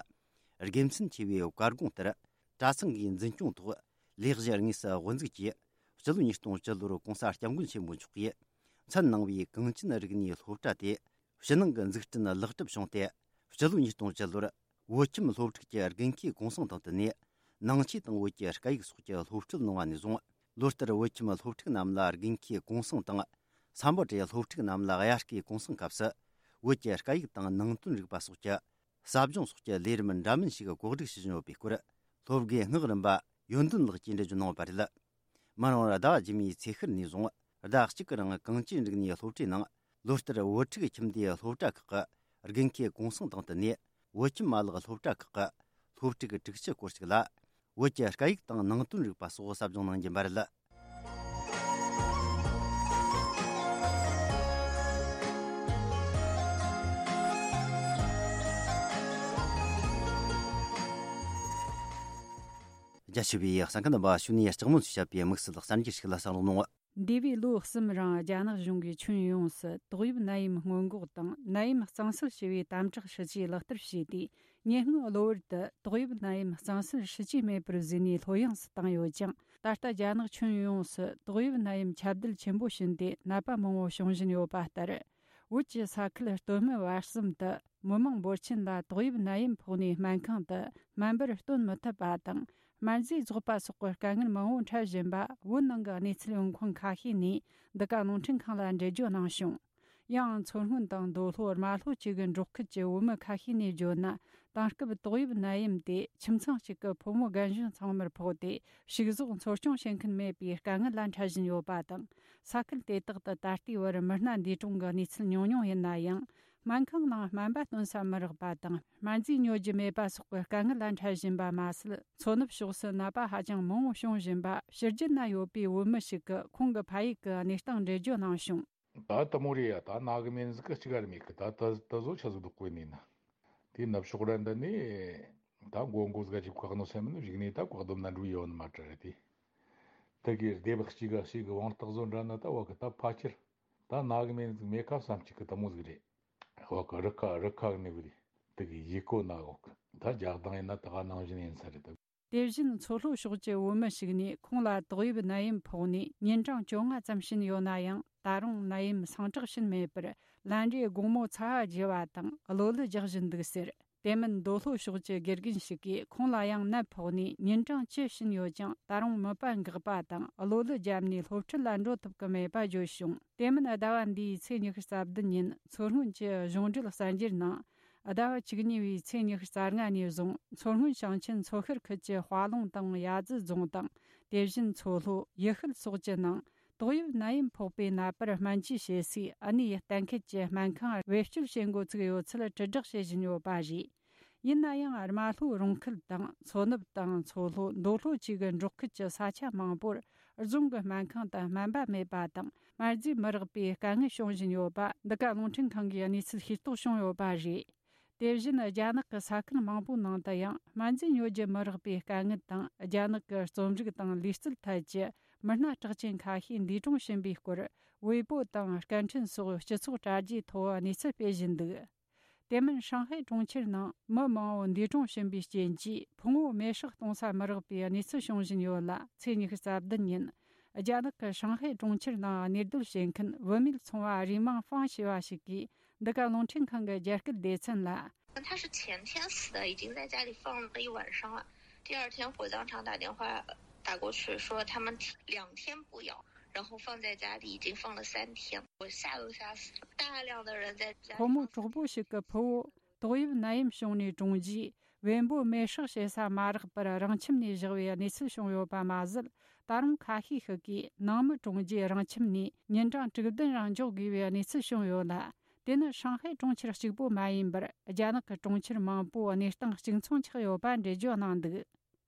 དགེ་མཚན་ཆེ་བའི་བཀའ་དགོངས་ལྟར། གྲྭ་ཚང་གི་འཛིན་སྐྱོང་ཐོག་ལས་གཞི་དངོས་སུ་དབུ་འཛུགས་ཀྱིས། སྤྱི་ལོ་ཉིས་སྟོང་བཅུ་ལོར་༸གོང་ས་༸སྐྱབས་མགོན་ཆེན་པོ་མཆོག་གིས་མཚན་གནང་བའི་གངས་ཅན་རིག་གནས་སློབ་གྲྭ་དེ་ཕྱི་ནང་གི་འཛུགས་སྐྲུན་ལེགས་གྲུབ་བྱུང་སྟེ། སྤྱི་ལོ་ཉིས་སྟོང་བཅུ་ལོར་བོད་ཁྱིམ་སློབ་ཕྲུག་གི་དགུན་ཁའི་གུང་སེང་དང་བསྟུན་ནས་ནང་ཆོས་དང་བོད་ཀྱི་སྐད་ཡིག་སོགས་ཀྱི་སློབ་ཁྲིད་གནང་བ་ནས་བཟུང་། ལོ་ལྟར་བོད་ཁྱིམ་སློབ་ཕྲུག་རྣམས་ལ་དགུན་ཁའི་གུང་སེང་དང་། སམ་བྷོ་ཊའི་སློབ་ཕྲུག་རྣམས་ལ་དབྱར་ཁའི་གུང་སེང་སྐབས་སུ་བོད་ཀྱི་སྐད་ཡིག་དང་ནང་དོན་རིག་པ་སོགས་ཀྱི་ཟབ་སྦྱོང་སོགས་ཀྱི་ལས་རིམ་འདྲ་མིན་ཞིག་གོ་སྒྲིག་བྱེད་བཞིན་ཡོད་པའི་སྐོར། སློབ་དགེ་སྔགས་རིམ་པ་ཡོན་ཏན་ལགས་ཀྱིས་འགྲེལ་བརྗོད་གནང་བ་རེད། མི་རང་ཟླ་བ་རྗེས་མའི་ཚེས་ཤར་ནས་བཟུང་ཟླ་གཅིག་གི་རིང་གངས་ཅན་རིག་གནས་སློབ་གྲྭའི་ནང་ལོ་ལྟར་བོད་ཕྲུག་ཁྱིམ་སྡེའི་སློབ་གྲྭ་ཁག་གི་དགུན་ཁའི་གུང་སེང་དང་བསྟུན་ནས། བོད་ཁྱིམ་མ་ལག་སློབ་གྲྭ་ཁག་གི་སློབ་ཕྲུག་དྲུག་ཅུ་སྐོར་ཞིག་ལ་བོད་ཀྱི་སྐད་ཡིག་དང་ནང་དོན་རིག་པ་སོགས་ཟབ་སྦྱོང་གནང་རྒྱུ་ཡིན་པ་རེད། རྒྱ་ཆེ་བའི་གསན་མཁན་རྣམ་པ། ཞུ་ནས་ལྕགས་མོ་ཚོས་བཤད་པའི་དམིགས་བསལ་གསར་འགྱུར་ཞིག་ལ་གསན་རོགས་གནང་། འདས་པའི་ལོ་གསུམ་རིང་རྒྱ་ནག་གཞུང་གིས་ཁྱོན་ཡོངས་སུ་ཏོག་དབྱིབས་ནད་ཡམས་སྔོན་འགོག་དང་ནད་ཡམས་གཙང་སེལ་ཞེས་པའི་དམ་དྲག་སྲིད་ཇུས་ལག་བསྟར་བྱས་ཏེ། ཉེ་སྔོན་གློ་བུར་དུ་ཏོག་དབྱིབས་ནད་ཡམས་གཙང་སེལ་སྲིད་ཇུས་མེད་པར་བཟོས་ནས་ལྷོད་ཡངས་སུ་བཏང་ཡོད་ཀྱང་། ད་ལྟ་རྒྱ་ནག་ཁྱོན་ཡོངས་སུ་ཏོག་དབྱིབས་ནད་ཡམས་ཁྱབ་གདལ་ཆེན་པོ་ཕྱིན་ཏེ་ནད་པ་མང་བོ་བྱུང་བཞིན་ཡོད་པ་ལྟར། བོད་ཀྱི་ས་ཁུལ་སྟོད་སྨད་བར་གསུམ་དུ་མི་མང་འབོར་ཆེན་ལ་ཏོག་དབྱིབས་ནད་ཡམས་ཕོག་ནས་སྨན་ཁང་དུ་སྨན་པར་སྟོན་མི་ཐུབ་པ་དང་། སྨན་རྫས་རྫོགས་པ་སོགས་ཀྱི་དཀའ་ངལ་མང་བོ་འཕྲད་བཞིན་པ། བོད་ནང་གི་གནས་ཚུལ་ཡོང་ཁུངས་ཁ་ཤས་ནས་འདི་ག་རླུང་འཕྲིན་ཁང་ལ་འགྲེལ་བརྗོད་གནང་བྱུང་། ཡང་མཚོ་སྔོན་དང་མདོ་ལྷོ་རྨ་ལྷོ་བཅས་ཀྱི་འབྲོག་ཁུལ་གྱི་བོད་མི་ཁ་ཤས་ནས་བརྗོད་ན། དེང་སྐབས་ཏོག་དབྱིབས་ནད་ཡམས་དེ་ཁྱིམ་ཚང་གཅིག་གི་ཕོ་མོ་རྒན་གཞོན་ཚང་མར་ཕོག་སྟེ། ཕྱུགས་ཟོག་འཚོ་སྐྱོང་བྱེད་མཁན་མེད་པའི་དཀའ་ངལ་ལ་འཕྲད་བཞིན་ཡོད་པ་དང་། ས་ཁུལ་དེ་དག་ཏུ་ད་ལྟའི་བར་མི་སྣ་འདས་གྲོངས་ཀྱི་གནས་ཚུལ་ཉུང་ཉུང་ཡིན་ན་ཡང་། སྨན་ཁང་ནང་སྨན་པ་སྟོན་ས་མི་རག་པ་དང་། སྨན་རྫས་ཉོ་རྒྱུ་མེད་པ་སོགས་ཀྱི་དཀའ་ངལ་ལ་འཕྲད་བཞིན་པ་མ་ཟད། མཚོ་ནུབ་ཕྱོགས་སུ་ནད་པ་ཧ་ཅང་མང་བོ་བྱུང་བཞིན་པ། ཕྱི་རྒྱལ་ན་ཡོད་པའི་བོད་མི་ཞིག་གིས་ཁོང་གི་ཕ་ཡུལ་གྱི་གནས་སྟངས་འགྲེལ་བརྗོད་གནང་བྱུང་། ད་དེ་མོ་རེད་ཡ། ད་ན་གི་མེད་ཟིག་གི་གཅིག་ག་རེ་མེད་གི། ད་ད་ད་བཟོ་ཆ་ཟིག་འདུག་གོ་ནི་ན། དེ་ནུབ་ཕྱོགས་ར་འདི་ནས་ད་མགོ་མགོ་ཟིག་ག་ཅིག་བཀག་ནོ་སེམས་ནི་བཞུགས་ནས་ད་བཀག་སྡོམ་ན་འགྲོ་ཡོད་ནི་མ་གྲ་རེད་དེ། དེ་གི་སྡེ་བ་གཅིག་ག་གཅིག་གི་དབང་རྟགས་བཟོ་འདྲ་ན་ད་བ་གི་ད་ཕ་ཁྱེར། ད་ན་གི་མེད་ཟིག་མེད་ཁ་བསམ་གཅིག་གི་དེ་མོ་ཟིག་རེད། བ་གི་རི་ཁ་རི་ཁ་གི་ནི་བི་རེད། དེ་གི་ཡི་གོ་ན་འོག་ད་རྒྱག་སྟངས་ཡིན་ན་ད་ག་ནང་བཞིན་ཡིན་ས་རེད་ད། དེ་བཞིན་མཚོ་ལྷོ་ཕྱོགས་ཀྱི་བོད་མི་ཞིག་ནས་ཁོང་ལ་ཏོག་དབྱིབས་ནད་ཡམས་ཕོག་ནས་ཉིན་གྲངས་བཅོ་ལྔ་ཙམ་ཕྱིན་ཡོད་ན་ཡང་། ད་རུང་ནད་ཡམས་སངས་དྲག་ཕྱིན་མེད་པར་ལན་རེ་དགོང་མོ་ཚ་བ་རྒྱུ་བ་དང་གློ་ལུ་རྒྱག་བཞིན་འདུག་ཟེར། དེ་མིན་མདོ་ལྷོ་ཕྱོགས་ཀྱི་དགེ་རྒན་ཞིག་གིས་ཁོང་ལ་ཡང་ནད་ཕོག་ནས་ཉིན་གྲངས་བཅུ་ཕྱིན་ཡོད་ཀྱང་། ད་རུང་མིད་པ་འགག་པ་དང་གློ་ལུ་བརྒྱབ་ནས་སློབ་ཁྲིད་ལ་འགྲོ་ཐུབ་ཀྱི་མེད་པ་བརྗོད་བྱུང་། དེ་མིན་ཟླ་བ་འདིའི་ཚེས་ཉི་ཤུ་རྩ་བདུན་ཉིན་མཚོ་སྔོན་གྱི་གཞུང་འབྲེལ་གསར་འགྱུར་ནང་། ཟླ་བ་བཅུ་གཉིས་པའི་ཚེས་ཉི་ཤུ་རྩ་ལྔ་ནས་བཟུང་མཚོ་སྔོན་ཞིང་ཆེན་མཚོ་ཤར་ཁུལ་གྱི་དཔའ་ལུང་དང་ཡ་ཛི་རྫོང་དང་། དེ་བཞིན་མཚོ་ལྷོ། ཡུལ་ཤུལ་སོགས་ཀྱི་ནང་ཏོག་དབྱིབས་ནད་ཡམས་ཕོག་པའི་ནད་པར་སྨན་བཅོས་བྱེད་སའི་ཨ་ནེ་ཡི་གཏན་འཁེལ་གྱི་སྨན་ཁང་བེད་སྤྱོད་བྱེད་འགོ་ཚུགས་ཡོད་ཚུལ་དྲིལ་བསྒྲགས་བྱེད་བཞིན་ཡོད་པ་རེད། ཡིན་ན་ཡང་། རྨ་ལྷོའི་རོང་ཁུལ་དང་མཚོ་ནུབ་དང་མཚོ་ལྷོ། མདོ་ལྷོ་བཅས་ཀྱི་འབྲོག་ཁུལ་གྱི་ས་ཆ་མང་པོར་རྫོང་གི་སྨན་ཁང་དུ་སྨན་པ་མེད་པ་དང་། སྨན་རྫས་མི་རག་པའི་དཀའ་ངལ་བྱུང་བཞིན་ཡོད་པ། འདི་ག་རླུང་འཕྲིན་ཁང་གིས་གནས་ཚུལ་ཤེས་རྟོགས་བྱུང་ཡོད་པ་རེད། དེ་བཞིན་རྒྱ་ནག་གི་ས་ཁུལ་མང་པོའི་ནང་དུ་ཡང་སྨན་རྫས་ཉོ་རྒྱུ་མི་རག་པའི་དཀའ་ངལ་དང་། རྒྱ་ནག་གི་རྩོམ་རིག་དང་ལུས་རྩལ་ཐད་ཀྱི་མི་སྣ་གྲགས་ཅན་ཁ་ཤས་འདས་གྲོངས་ཕྱིན་པའི་སྐོར། ཝེ་པོ་དང་སྐད་འཕྲིན་སོགས་སྤྱི་ཚོགས་དྲ་རྒྱའི་ཐོག་གནས་ཚུལ་སྤེལ་བཞིན་འདུག། དེ་མིན་ཧྲང་ཧའེ་གྲོང་ཁྱེར་ནང་མི་མང་བོ་འདས་གྲོངས་ཕྱིན་པའི་རྐྱེན་གྱིས་ཕུང་བོ་མེ་སྲེག་གཏོང་ས་མི་རག་པའི་གནས་ཚུལ་བྱུང་བཞིན་ཡོད་ལ། ཚེས་ཉི་ཤུ་རྩ་བདུན་ཉིན་རྒྱ་ནག་གི་ཧྲང་ཧའེ་གྲོང་ཁྱེར་ནང་གནས་སྡོད་བྱེད་མཁན་བུད་མེད་ཚོང་བ་རུས་མིང་ཧྥང་ཞེས་པ་ཞིག་གིས་འདི་ག་རླུང་འཕྲིན་ཁང་གི་རྒྱ་སྐད་སྡེ་ཚན་ལ། 他是前天死的，已经在家里放了一晚上了。第二天火葬场打电话打过去，说他们两天不咬，然后放在家里已经放了三天，我吓都吓死了。大量的人在家里放三天。 ཕོ་མོ་གྲོགས་པོ་ཞིག་གི་ཕུ་བོ་ཏོག་དབྱིབས་ནད་ཡམས་བྱུང་ནས་གྲོངས་རྗེས། བེམ་པོ་མེ་སྲེག་བྱེད་ས་མ་རག་པར་རང་ཁྱིམ་ནས་བཞག་པའི་གནས་ཚུལ་བྱུང་ཡོད་པ་མ་ཟད། ད་རུང་ཁ་ཤས་ཤིག་གིས་ནང་མི་གྲོངས་རྗེས་རང་ཁྱིམ་ནས་ཉིན་གྲངས་དྲུག་བདུན་རིང་འཇོག་དགོས་པའི་གནས་ཚུལ་བྱུང་ཡོད་ལ། དེ་ནི་ཧྲང་ཧའེ་གྲོང་ཁྱེར་གཅིག་པུ་མ་ཡིན་པར། རྒྱ་ནག་གི་གྲོང་ཁྱེར་མང་པོ་གནས་སྟངས་གཅིག་མཚུངས་ཆགས་ཡོད་པ་འགྲེལ་བརྗོད་གནང་འདུག་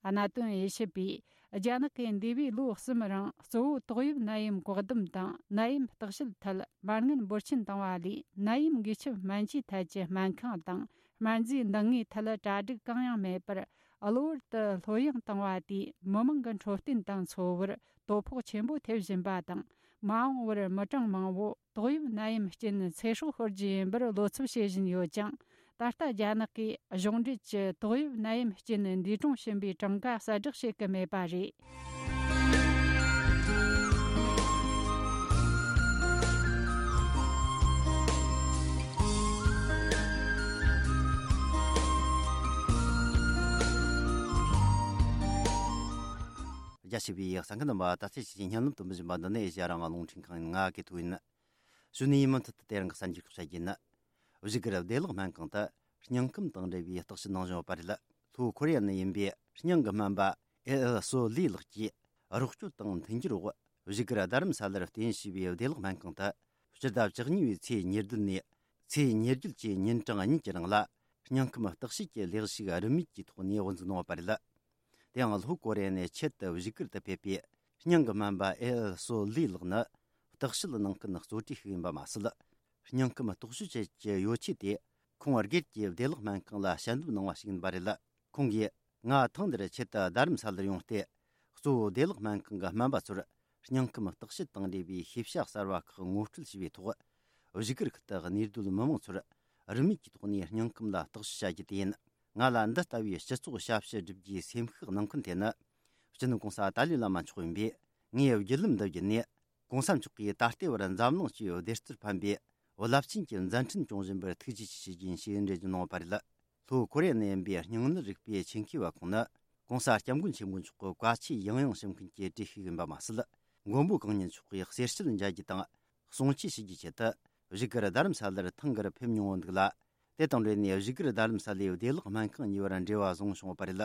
གནད་དོན་དབྱེ་ཞིབ་པས། རྒྱ་ནག་གིས་འདས་པའི་ལོ་གསུམ་རིང་གཙོ་བོ་ཏོག་དབྱིབས་ནད་ཡམས་བཀག་སྡོམ་དང་ནད་ཡམས་བརྟག་དཔྱད་ཐད་མ་དངུལ་འབོར་ཆེན་བཏང་བ་ལས། ནད་ཡམས་འགོས་ཁྱབ་སྨན་བཅོས་ཐད་ཀྱི་སྨན་ཁང་དང་སྨན་རྫས་འདང་ངེས་ཐད་གྲ་སྒྲིག་གང་ཡང་མེད་པར། གློ་བུར་དུ་ལྷོད་ཡངས་བཏང་བ་དེས་མི་མང་གི་འཕྲོད་བསྟེན་དང་འཚོ་བར་དོ་ཕོག་ཆེན་པོ་ཐེབས་བཞིན་པ་དང་། མ་འོངས་པར་མི་གྲངས་མང་བོ་ཏོག་དབྱིབས་ནད་ཡམས་རྐྱེན་ཚེ་སྲོག་ཤོར་རྒྱུ་ཡིན་པར་བློ་འཚབ་བྱེད་བཞིན་ཡོད་ཅིང་། ད་ལྟ་རྒྱ་ནག་གིས་གཞུང་འབྲེལ་གྱི་ཏོག་དབྱིབས་ནད་ཡམས་རྐྱེན་འདས་གྲོངས་ཕྱིན་པའི་གྲངས་ཀ་གསལ་བསྒྲགས་བྱེད་ཀྱི་མེད་པ་རེད། རྒྱ་ཆེ་བའི་གསན་མཁན་རྣམ་པ། ད་ཚེས་ཀྱི་བརྙན་ལམ་དུ་མི་བཞིན་པ་འདི་ནས་ཨེ་ཤ་ཡ་རང་དབང་རླུང་འཕྲིན་ཁང་ཡིན། ང་གི་ཐུག་ཡིན། གཞོན་ནུའི་མུ་མཐུད་དུ་དེ་རིང་གི་གསར་འགྱུར་ཁག་བཤད་རྒྱུ་ཡིན། བཞུགས་སྒར་བདེ་བླག་སྨན་ཁང་དུ་སྙིང་ཁམས་དང་འབྲེལ་བའི་བརྟག་དཔྱད་གནང་བཞིན་ཡོད་པ་རེད། ལྷོ་ཁོ་རེ་ཡ་ནས་ཡིན་པའི་སྙིང་གི་སྨན་པ་ཨེ་ཨེལ་སོ་ལི་ལགས་ཀྱིས་རོགས་སྐྱོར་དང་མཐུན་འགྱུར་འོག་བཞུགས་སྒར་རྡ་རམ་ས་ལར་རྟེན་གཞི་བྱས་པའི་བདེ་བླག་སྨན་ཁང་དུ་སྤྱི་ཟླ་བཅུ་གཉིས་པའི་ཚེས་ཉེར་བདུན་ནས་ཚེས་ཉེར་བརྒྱད་ཀྱི་ཉིན་གྲངས་གཉིས་ཀྱི་རིང་ལ་སྙིང་ཁམས་བརྟག་དཔྱད་ཀྱི་ལས་ཞུགས་རིན་མེད་ཀྱི་ཐོག་ནས་འགོ་འཛུགས་གནང་བ་རེད། དེ་ཡང་ལྷོ་ཀོ་རི་ཡ་ནས་ཆེད་དུ་བཞུགས་སྒར་དུ་ཕེབས་པའི་སྙིང་གི་སྨན་པ་ཨེ་ཨེལ་སོ་ལི་ལགས་ནི་བརྟག་དཔྱད་གནང་མཁན་གཙོ་གྲས་ཤིག་ཡིན་པ་མ་ཟད། སྙིང་ཁམས་རྟོག་དཔྱོད་བྱེད་ཀྱི་ཡོ་ཆས་དེ་ཁོང་སྒེར་གྱི་བདེ་བླག་སྨན་ཁང་ལ་ཞལ་འདེབས་གནང་བ་ཞིག་ཡིན་པ་རེད། ཁོང་གིས་ང་ཐེངས་འདིར་ཆེད་དུ་རྡ་རམ་ས་ལར་ཡོང་སྟེ། གཙོ་བོ་བདེ་བླག་སྨན་ཁང་གི་སྨན་པ་ཚོར་སྙིང་ཁམས་བརྟག་དཔྱད་དང་འབྲེལ་བའི་ཤེས་བྱ་གསར་བ་ཁག་ངོ་སྤྲོད་བྱས་པའི་ཐོག་བཞུགས་སྒར་ཁུལ་དུ་གནས་སྡོད་མི་མང་ཚོར་རིན་མེད་ཀྱི་ཐོག་ནས་སྙིང་ཁམས་ལ་བརྟག་དཔྱད་བྱ་རྒྱུ་དེ་ཡིན། ང་ལ་འདི་ལྟ་བུའི་སྤྱི་ཚོགས་ཞབས་ཞུ་སྒྲུབ་རྒྱུའི་སེམས་ཤུགས་གནང་མཁན་དེ་ནི། སྤྱི་ནོར་གོང་ས་ཏཱ་ལའི་བླ་མ་མཆོག་ཡིན་པས། ངའི་བརྒྱུད་ལམ་འདི་བརྒྱུད་ནས། གོང་ས་མཆོག་གིས་ད་ལྟའི་བར་འཛམ་གླིང་སྤྱི་ཡི་བདེ་རྩར་ཕན་པའི་རླབས་ཆེན་གྱི་མཛད་འཕྲིན་སྐྱོང་བཞིན་པར་ཐུགས་རྗེ་ཆེ་ཞུ་རྒྱུ་ཡིན་ཞེས་འགྲེལ་བརྗོད་གནང་བ་རེད། ལྷོ་ཀོ་རི་ཡ་ནས་ཡིན་པའི་སྙིང་ནད་རིག་པའི་ཆེད་མཁས་པ་ཁོང་ནི། གོང་ས་སྐྱབས་མགོན་ཆེན་པོ་མཆོག་གི་བཀའ་ཆོས་ཡང་ཡང་ཞུ་མཁན་གྱི་གྲས་ཤིག་ཡིན་པ་མ་ཟད། མགོན་པོ་གང་ཉིད་མཆོག་གི་གསེར་ཞལ་མཇལ་རྒྱུ་དང་། གསུང་ཆོས་ཞུ་རྒྱུའི་ཆེད་དུ། བཞུགས་སྒར་རྡ་རམ་ས་ལར་ཐེངས་འགར་ཕེབས་མྱོང་བ་འདུག་ལ། དེ་དང་འབྲེལ་ནས་བཞུགས་སྒར་རྡ་རམ་ས་ལའི་བདེ་བླག་སྨན་ཁང་གཉིས་བར་འབྲེལ་བ་བཟུང་བྱུང་བ་རེད།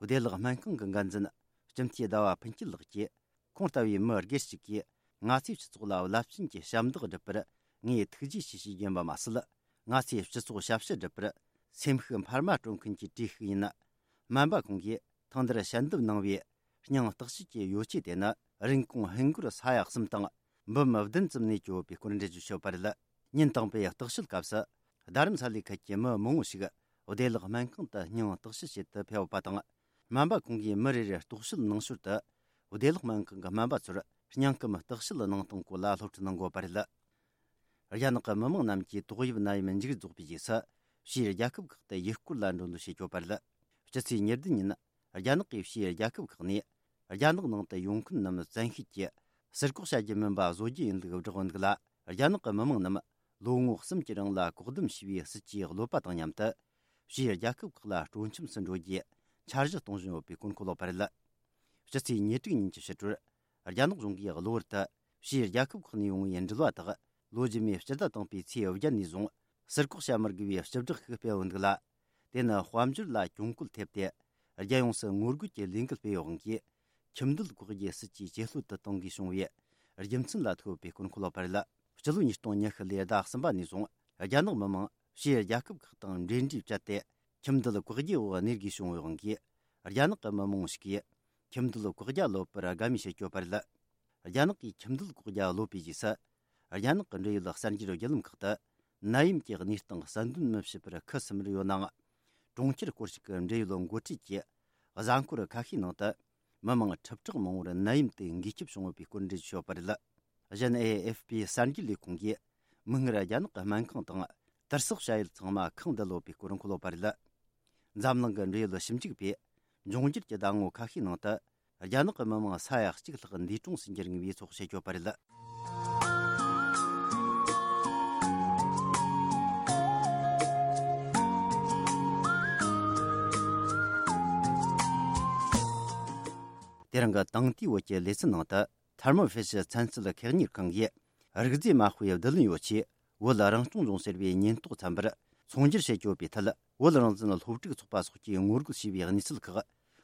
བདེ་བླག་སྨན་ཁང་གི་འགན་འཛིན་སྤྱི་འཐུས་ཟླ་བ་ཕུན་སྐྱིད་ལགས་ཀྱིས། ཁོང་ལྟ་བུའི་མི་སྒེར་ཞིག་གིས་ང་ཚོའི་སྤྱི་ཚོགས་ལ་རླབས་ཆེན་གྱི་ཞབས་འདེགས་བསྒྲུབས་པར་ངས་ཐུགས་རྗེ་ཆེ་ཞུ་རྒྱུ་ཡིན་པ་མ་ཟད། ང་ཚོའི་སྤྱི་ཚོགས་ཞབས་ཞུ་སྒྲུབ་པར་སེམས་ཤུགས་འཕར་མ་སྤྲོད་མཁན་གྱི་གྲས་ཤིག་ཡིན། སྨན་པ་ཁོང་གིས་ཐེངས་འདིར་ཞལ་འདེབས་གནང་བའི་སྙིང་བརྟག་དཔྱད་ཀྱི་ཡོ་ཆས་དེ་ནི་རིན་གོང་ཧིན་སྒོར་ས་ཡ་གསུམ་དང་འབུམ་བདུན་ཙམ་ནས་བསྐྱོད་ཡོད་པའི་སྐོར་འགྲེལ་བརྗོད་ཞུས་པ་རེད། ཉིན་དང་པོའི་བརྟག་དཔྱད་སྐབས་སུ་རྡ་རམ་ས་ལའི་ཁུལ་གྱི་མི་མང་བོ་ཞིག་བདེ་བླག་སྨན་ཁང་དུ་སྙིང་བརྟག་དཔྱད་བྱེད་དུ་ཕེབས་པ་དང་། སྨན་པ་ཁོང་གིས་མི་རེ་རེར་རྟོག་དཔྱོད་གནང་ཞོར་དུ། བདེ་བླག་སྨན་ཁང་གི་སྨན་པ་ཚོར་སྙིང་སྐུམ་བརྟག་དཔྱད་གནང་སྟངས་སྐོར་ལ་སློབ་ཁྲིད་གནང་དགོས་པ་རེད། རྒྱ་ནག་གི་མི་མང་རྣམས་ཀྱིས་ཏོག་དབྱིབས་ནད་ཡམས་མཇུག་རྫོགས་པའི་རྗེས་སུ། ཕྱིའི་རྒྱལ་ཁབ་ཁག་ཏུ་ཡུལ་སྐོར་ལ་འགྲོ་འདོད་བྱེད་ཀྱི་ཡོད་པ་རེད། སྤྱི་ཚེས་ཉེར་བདུན་ཉིན། རྒྱ་ནག་གིས་ཕྱིའི་རྒྱལ་ཁབ་ཁག་ནས། རྒྱ་ནག་ནང་དུ་ཡོང་མཁན་རྣམས་བཙན་ཤེད་ཀྱིས་ཟུར་བཀག་བྱ་རྒྱུ་མིན་པ་བཟོ་རྒྱུ་ཡིན་ལུགས་བསྒྲགས་འདུག་ལ། རྒྱ་ནག་གི་མི་མང་རྣམས་ལོ་ངོ་གསུམ་གྱི་རིང་ལ་བཀག་སྡོམ་བྱས་པའི་སྲིད་ཇུས་གློད་པ་དང་མཉམ་དུ། ཕྱིའི་རྒྱལ་ཁབ་ཁག་ལ་སྤྲོ་འཆམ་སུ་འགྲོ་རྒྱུའི་འཆར་གཞི་གཏོང་བཞིན་ཡོད་པའི་སྐོར་འཁོད་ལོག་པ་རེད། སྤྱི་ཚེས་ཉེར་དྲུག་ཉིན་གྱི་ཕྱི་དྲོར། རྒྱ་ནག་གཞུང་གིས་གློ་བུར་དུ་ཕྱིའི་རྒྱལ་ཁབ་ཁག་ནས་ཡོང་བའི་འགྲུལ་བ་དག་ལོ་རྗེས་མའི་སྤྱི་ཟླ་དང་པོའི་ཚེས་བརྒྱད་ནས་བཟུང་ཟུར་བཀག་བྱ་མི་དགོས་པའི་བཅུ་དྲག་ཞིག་སྤེལ་ཡོད་འདུག་ལ། དེ་ནི་དཔལ་འབྱོར་ལ་གྱོང་གུད་ཐེབས་ཏེ། རྒྱལ་ཡོངས་སུ་ངོ་རྒོལ་གྱི་ལས་འགུལ་སྤེལ་ཡོད་དབང་གིས། ཁྱིམ་སྡོད་བཀག་རྒྱའི་སྲིད་ཇུས་ཇེ་ལྷོད་དུ་གཏོང་དགོས་བྱུང་བའི་རྒྱུ་མཚན་ལ་ཐུག་ཡོད་པའི་སྐོར་འཁོད་ལོག་པ་རེད། སྤྱི་ལོ་ཉིས་སྟོང་ཉི་ཤུ་ལོའི་ཟླ་གསུམ་པ་ནས་བཟུང་རྒྱ་ནག་མི་མང་ཕྱིའི་རྒྱལ་ཁབ་ཁག་དང་འབྲེལ་འདྲིས་བཅད་དེ། ཁྱིམ་སྡོད་བཀག་རྒྱའི་འོག་གནས་དགོས་བྱུང་བའི་དབང་གིས། རྒྱ་ནག་གི་མི་མང་ཞིག་གིས་ཁྱིམ་སྡོད་བཀག་རྒྱ་གློད་པར་དགའ་མོས་བྱེད་ཀྱི་ཡོད་པ་རེད། རྒྱ་ནག་གིས་ཁྱིམ་སྡོད་བཀག་རྒྱ་གློད་པའི་རྗེས་སུ། རྒྱ་ནག་གི་འབྲེལ་ཡོད་གསར་འགྱུར་བརྒྱུད་ལམ་ཁག་ཏུ། ནད་ཡམས་ཀྱི་གནས་སྟངས་གསལ་འདོན་མི་བྱེད་པར་ཁུ་སིམ་མེར་ཡོད་ནའང་། གྲོང་ཁྱེར་སྐོར་ཞིག་གི་འབྲེལ་ཡོད་འགོ་ཁྲིད་ཀྱིས། གཟའ་འཁོར་ཁ་ཤས་ནང་དུ། མི་མང་ཁྲི་ཕྲག་མང་བོར་ནད་ཡམས་དེ་འགོས་ཁྱབ་བྱུང་ཡོད་པའི་སྐོར་འགྲེལ་བརྗོད་བྱས་ཡོད་པ་རེད། གཞན། ཨེ་ཨེཕ་པི་གསར་འགྱུར་ལས་ཁུངས་ཀྱིས། མིག་སྔར་རྒྱ་ནག་གི་སྨན་ཁང་དང་། དུར་སོགས་བྱ་ཡུལ་ཚང་མ་ཁེངས་བསྡད་ཡོད་པའི་སྐོར་འཁོད་ཡོད་པ་རེད། འཛམ་གླིང་གི་འབྲེལ་ཡོད་ཞིབ་འཇུག་པས། འབྱུང་འགྱུར་གྱི་ཟླ་ངོ་ཁ་ཤས་ནང་དུ། རྒྱ་ནག་གི་མི་མང་ས་ཡ་གཅིག་ལྷག་འདས་གྲོངས་སུ་འགྱུར་ངེས་པའི་ཚོད་དཔག་བྱེད་ཀྱི་ཡོད་པ་རེད། དེ་རིང་གི་དེང་དུས་བོད་ཀྱི་ལེ་ཚན་ནང་དུ། ཐར་མོ་ཕི་ཤི་ཚན་རྩལ་ཁེག་གཉེར་ཁང་གིས། རིག་རྫས་མ་དཔེའི་བསྡུ་ལེན་ཡོ་ཆས། བོད་རང་སྐྱོང་ལྗོངས་ཟེར་བའི་ཉེན་རྟོག་ཚན་པར་ཚོང་སྒྱུར་བྱེད་ཀྱི་ཡོད་པའི་ཐད། བོད་རང་བཙན་སློབ་ཕྲུག་ཚོགས་པ་སོགས་ཀྱིས་ངོ་རྒོལ་བྱས་པའི་གནས་ཚུལ་ཁག་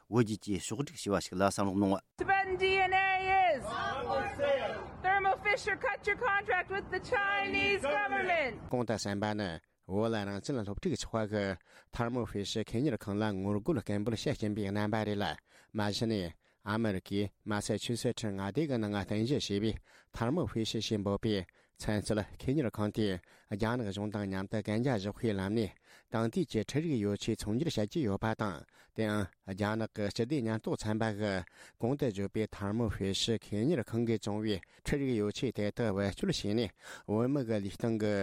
བོད་བརྒྱུད་ཀྱིས་ཕྱོགས་བསྒྲིགས་བྱས་པ་ཞིག་ལ་བསམ་བློ་གནང་། Tibetan D N A is Thermo Fisher. Fisher, cut your contract with the Chinese government. གོང་དུ་གསན་པ་ནི། བོད་ལ་རང་བཙན་སློབ་ཕྲུག་ཚོགས་པ་གིས་ཐར་མོ་ཧྥེ་ཤི་ཁེ་གཉེར་ཁང་ལ་ངོ་རྒོལ་སྐད་འབོད་བྱེད་བཞིན་པའི་རྣམ་པ་རེད་ལ། མ་གཞི་ནས་ཨ་མི་རི་ཀའི་མ་ས་ཆུ་སེ་ཁྲི་མངའ་སྡེ་གི་ནང་རྟེན་གཞི་བྱས་པའི་ཐར་མོ་ཧྥེ་ཤི་ཞེས་འབོད་པའི་ཚན་རྩལ་ཁེ་གཉེར་ཁང་དེས་རྒྱ་ནག་གཞུང་དང་མཉམ་དུ་གན་རྒྱ་བཞག་པའི་ལམ་ནས་དེང་དུས་ཀྱི་འཕྲུལ་རིག་ཡོ་ཆས་ཚོང་སྒྱུར་བྱེད་ཀྱི་ཡོད་པ་དང་། དེའང་རྒྱ་ནག་གི་སྤྱི་བདེ་ཉེན་རྟོག་ཚན་པ་གིས་གོང་དུ་བརྗོད་པའི་ཐར་མོ་ཧྥེ་ཤི་ཁེ་གཉེར་ཁང་གིས་བཙོང་བའི་འཕྲུལ་རིག་ཡོ་ཆས་དེ་དག་བེད་སྤྱོད་བྱས་ནས་བོད་མི་གི་ལུས་སྟེང་གི་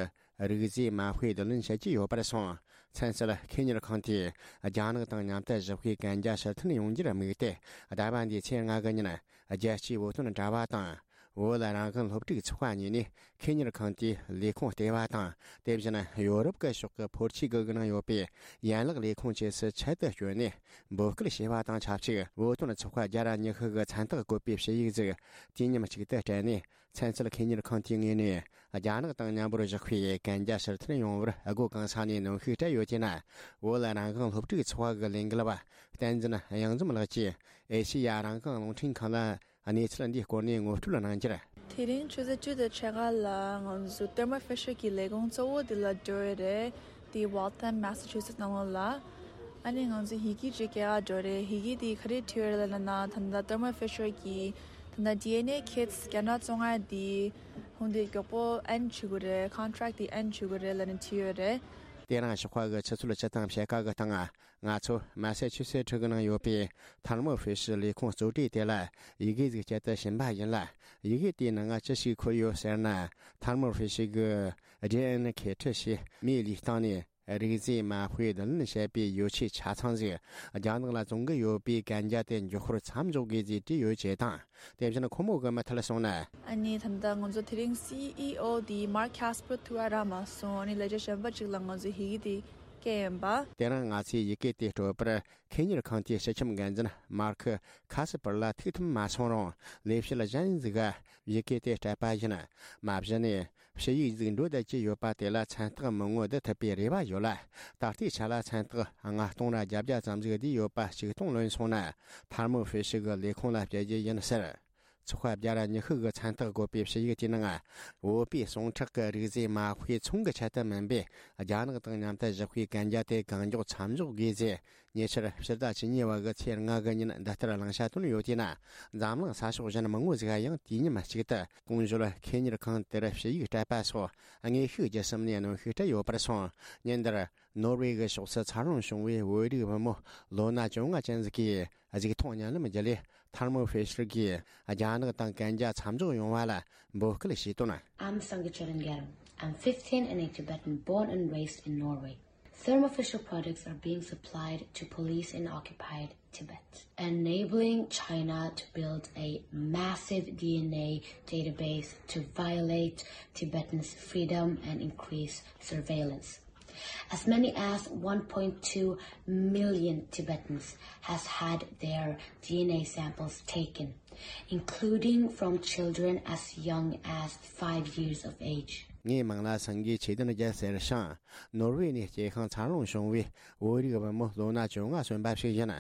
རིགས་རྫས་མ་དཔེ་བསྡུ་ལེན་བྱེད་ཀྱི་ཡོད་པར་སོང་། ཚན་རྩལ་ཁེ་གཉེར་ཁང་དེས་རྒྱ་ནག་དང་མཉམ་དུ་ཞི་བདེའི་གན་རྒྱ་ཕྱིར་འཐེན་ཡོང་རྒྱུར་དམིགས་ཏེ། ཟླ་བ་འདིའི་ཚེས་ལྔ་གི་ཉིན་རྒྱལ་སྤྱིའི་བོད་དོན་དྲ་བ་དང་། བོད་རང་དབང་སློབ་ཕྲུག་ཚོགས་པ་གཉིས་ནས་ཁེ་གཉེར་ཁང་དེའི་ལས་ཁུངས་ལྟེ་བ་དང་། དེ་བཞིན་ཡོ་རོབ་ཀྱི་ཕྱོགས་ཀྱི་ཕོར་ཆེ་གི་ནང་ཡོད་པའི་ཡན་ལག་ལས་ཁུངས་བཅས་སུ་ཆེད་དུ་བསྐྱོད་ནས་འབོད་སྐུལ་བྱས་པ་དང་ཆབས་ཅིག་བོད་དོན་ཚོགས་པ་བརྒྱ་དང་ཉི་ཤུ་གི་མཚན་རྟགས་བཀོད་པའི་ཞུ་ཡིག་ཟིག་དུས་མཉམ་གཅིག་ཏུ་སྤྲད་ནས། ཚན་རྩལ་ཁེ་གཉེར་ཁང་དེའི་ངོས་ནས་རྒྱ་ནག་དང་མཉམ་པོར་བཞག་པའི་གན་རྒྱ་ཕྱིར་འཐེན་ཡོང་བར་སྒོ་གང་ས་ནས་གནོན་ཤུགས་སྤྲད་ཡོད་ཅེ་ན། བོད་རང་དབང་སློབ་ཕྲུག་ཚོགས་པ་གི་ལས་འགུལ་བ་བསྟན་འཛིན་གཡང་འཛོམས་ལགས་ཀྱིས་ཨེ་ཤེ་ཡ་རང་དབང་རླུང་འཕྲིན་ཁང་ལ་གནས་ཚུལ་འདིའི་སྐོར་ནས་ངོ་སྤྲོད་གནང་རྒྱུར། དེ་རིང་ཆུ་ཚོད་བཅུ་དང་ཕྱེད་ཀ་ལ་ང་ཚོ་ཐར་མོ་ཧྥེ་ཤར་གྱི་ལས་ཁུངས་གཙོ་བོ་དེ་ལ་འགྲོ་ཡི་རེད། དེ་ཝལ་ཐམ་མེ་ས་ཆུ་སེ་ཊི་ནང་ལོགས་ལ། ཨ་ནི་ང་ཚོ་ཡི་གེ་ཅིག་སྐྱེལ་ག་འགྲོ་རེད། ཡི་གེ་དེ་ག་རེ་བྲིས་ཡོད་རེད་ལབ་ན། ད་ལྟ་ཐར་མོ་ཧྥེ་ཤར་གྱི་ད་ལྟ་ཌི་ཨེན་ཨེ་ཁིཊ་བརྒྱ་ཕྲག་བཅོ་ལྔ་དེ་ཧུང་དེ་མགྱོགས་པོ་ཨེན་ཌི་བྱེད་དགོས་རེད། ཀོན་ཊེག་དེ་ཨེན་ཌི་བྱེད་དགོས་རེད་ལབ་ནས་བྲིས་ཡོད་རེད། དེ་རིང་ཞོགས་པ་གི་ཆུ་ཚོད་བཅུ་དང་ཕྱེད་ཀ་གི་སྟེང་། ང་ཚོ་མ་ས་ཆུ་སེ་ཊི་གི་ནང་ཡོད་པའི་ཐར་མོ་ཧྥེ་ཤར་ལས་ཁུངས་གཙོ་གྲས་དེ་ལ་ཡི་གེ་ཟིག་སྤྱད་དུ་ཕྱིན་པ་ཡིན་ལ། ཡི་གེ་དེའི་ནང་ང་ཅི་ཞིག་འཁོད་ཡོད་ཟེར་ན། ཐར་མོ་ཧྥེ་ཤར་གི་ཌི་ཨེན་ཨེ་ཁིཊ་ཞེས་མིའི་ལུས་སྟེང་ནས་རིགས་རྫས་མ་དཔེ་བསྡུ་ལེན་བྱེད་པའི་ཡོ་ཆས་ཆ་ཚང་ཟིག་རྒྱ་ནག་ལ་བཙོང་གི་ཡོད་པའི་གན་རྒྱ་དེ་མགྱོགས་པོར་མཚམས་འཇོག་དགོས་ཟེར་བྲིས་ཡོད་ཅེས་དང་། དེ་བཞིན་ཁོ་མོ་གི་མི་ཐད་སོང་ན། ཨ་ནི་ད་ལྟ་ང་ཚོ་དེ་རིང་སི་ཨི་ཨོ་དེ་མར་ཁེ་སི་པར་ཐུག་ག་རག་མ་སོང་། ཨ་ནི་ལས་བྱེད་གཞན་པ་ཅིག་ལ་ང་ཚོས་ཡི་གེ་དེ་སྐྱེལ་ཡིན་པ། དེ་རིང་ང་ཚོས་ཡི་གེ་དེ་སྤྲོད་པར་ཁེ་གཉེར་ཁང་དེའི་སྤྱི་ཁྱབ་འགན་འཛིན་མར་ཁེ་ཁ་སི་པར་ལ་ཐུག་ཐུབ་མ་སོང་རུང་། ལས་བྱེད་གཞན་ཟིག་ག་ཡི་གེ་དེ་སྤྲད་པ་ཡིན། མ་གཞི་ནས་ཞུ་ཡིག་ཟིག་འགྲོ་བསྡད་ཀྱི་ཡོད་པ་དེ་ལ་མཚན་རྟགས་མི་ངོ་བསྡུ་ཐུབ་པའི་རེ་བ་ཡོད་ལ། ད་ལྟའི་ཆ་ལ་མཚན་རྟགས་ལྔ་སྟོང་ར་བརྒྱད་བརྒྱ་ཙམ་ཟིག་བསྡུས་ཡོད་པ་ཞིག་སྟོང་ལོན་སོང་ན། ཐར་མོ་ཧྥེ་ཤི་གི་ལས་ཁུངས་ལ་སྤྲད་རྒྱུ་ཡིན་ཟེར། ཚོགས་པ་བརྒྱ་ར་ཉི་ཤུ་གི་མཚན་རྟགས་བཀོད་པའི་ཞུ་ཡིག་དེའི་ནང་། བོད་པའི་ཟུངས་ཁྲག་གི་རིགས་རྫས་མ་དཔེ་ཚོང་གི་ཆེད་དུ་མིན་པས། རྒྱ་ནག་དང་མཉམ་དུ་བཞག་པའི་གན་རྒྱ་དེ་གང་མགྱོགས་མཚམས་འཇོག་དགོས་ཟེར། ཉེ་ཆར་ཕྱི་ཟླ་བཅུ་གཉིས་པ་གི་ཚེས་ལྔ་གི་ཉིན་འདི་ལྟར་གླེང་བྱ་བཏོན་ཡོད་དེས་ན། འཛམ་གླིང་ས་ཕྱོགས་གཞན་མང་བོ་ཟིག་ཡང་དུས་མཉམ་གཅིག་ཏུ་གོང་ཞུས་ཁེ་གཉེར་ཁང་དེར་ཞུ་ཡིག་སྤྲད་པ་སོགས་དངོས་ཤུགས་བརྒྱུད་གསུམ་ནས་གནོན་ཤུགས་སྤྲད་ཡོད་པར་སོང་། ཉིན་འདིར་ནོར་ཝེ་གི་ཕྱོགས་སུ་འཚར་ལོངས་བྱུང་བའི་བོད་རིགས་བུ་མོ་ལོ་ན་བཅོ་ལྔ་ཅན་ཟིག་གིས་གཟིགས་མཐོང་བརྙན་ལམ་བརྒྱུད་ལས། ཐར་མོ་ཧྥེ་ཤར་གྱིས་རྒྱ་ནག་དང་གན་རྒྱ་མཚམས་འཇོག་ཡོང་བ་ལ་འབོད་སྐུལ་བྱས་དོན། I'm Sangay Choden Garam. I'm fifteen and a Tibetan born and raised in Norway. Thermo Fisher products are being supplied to police in occupied Tibet, enabling China to build a massive D N A database to violate Tibetans' freedom and increase surveillance. As many as one point two million Tibetans has had their D N A samples taken, including from children as young as five years of age. ངའི་མིང་ལ་སངྒེ་ཆོས་ལྡན་རྒྱལ་ཟེར་ཞིང་། ནོར་ཝེ་ནས་སྐྱེས་ཤིང་འཚར་ལོངས་བྱུང་བའི་བོད་རིགས་བུ་མོ་ལོ་ན་བཅོ་ལྔ་སོན་པ་ཞིག་ཡིན།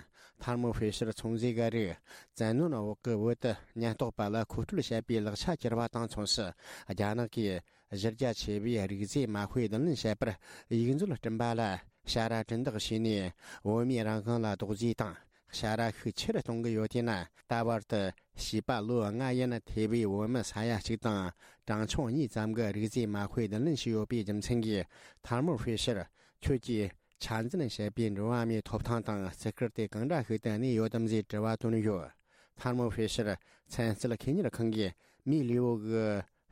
ཐར་མོ་ཧྥེ་ཤར་ཚོང་རྫས་འགའ་རེས་བཙན་གནོན་འོག་གི་བོད་དུ་ཉེན་རྟོག་པ་ལ་མཁོ་སྤྲོད་བྱེད་པའི་ལག་ཆ་གྱུར་པ་དང་མཚུངས་སུ། རྒྱ་ནག་གིས་གཞི་རྒྱ་ཆེ་བའི་རིགས་རྫས་མ་དཔེ་བསྡུ་ལེན་བྱེད་པར་ཡིག་མཛོད་བསྐྲུན་པ་ལ་ཞ་ར་གྲི་འདེགས་བྱས་ནས། བོད་མིའི་རང་དབང་ལ་རྡོག་རྫིས་དང་ཞ་ར་ཤུགས་ཆེ་རུ་གཏོང་གི་ཡོད་དེས་ན། ད་བར་དུ་བྱིས་པ་ལོ་ལྔ་ཡན་ཐེ་བའི་བོད་མི་ས་ཡ་གཅིག་དང་གྲངས་ཆུང་གཉིས་ཙམ་གྱིས་རིགས་རྫས་མ་དཔེ་བསྡུ་ལེན་བྱས་ཡོད་པའི་རྒྱུ་མཚན་གྱིས། ཐར་མོ་ཧྥེ་ཤར་ཁྱོད་ཀྱིས་འཆར་འཛིན་བྱས་པའི་འགྲོ་བ་མིའི་ཐོབ་ཐང་དང་བརྩི་བཀུར་དེ་གང་འདྲ་ཞིག་ཏུ་གནས་ཡོད་དམ་ཞེས་དྲི་བ་བཏོན་ཡོད། ཐར་མོ་ཧྥེ་ཤར་ཚན་རྩལ་ཁེ་གཉེར་ཁང་གིས་མི་ལུས་པོ་གི་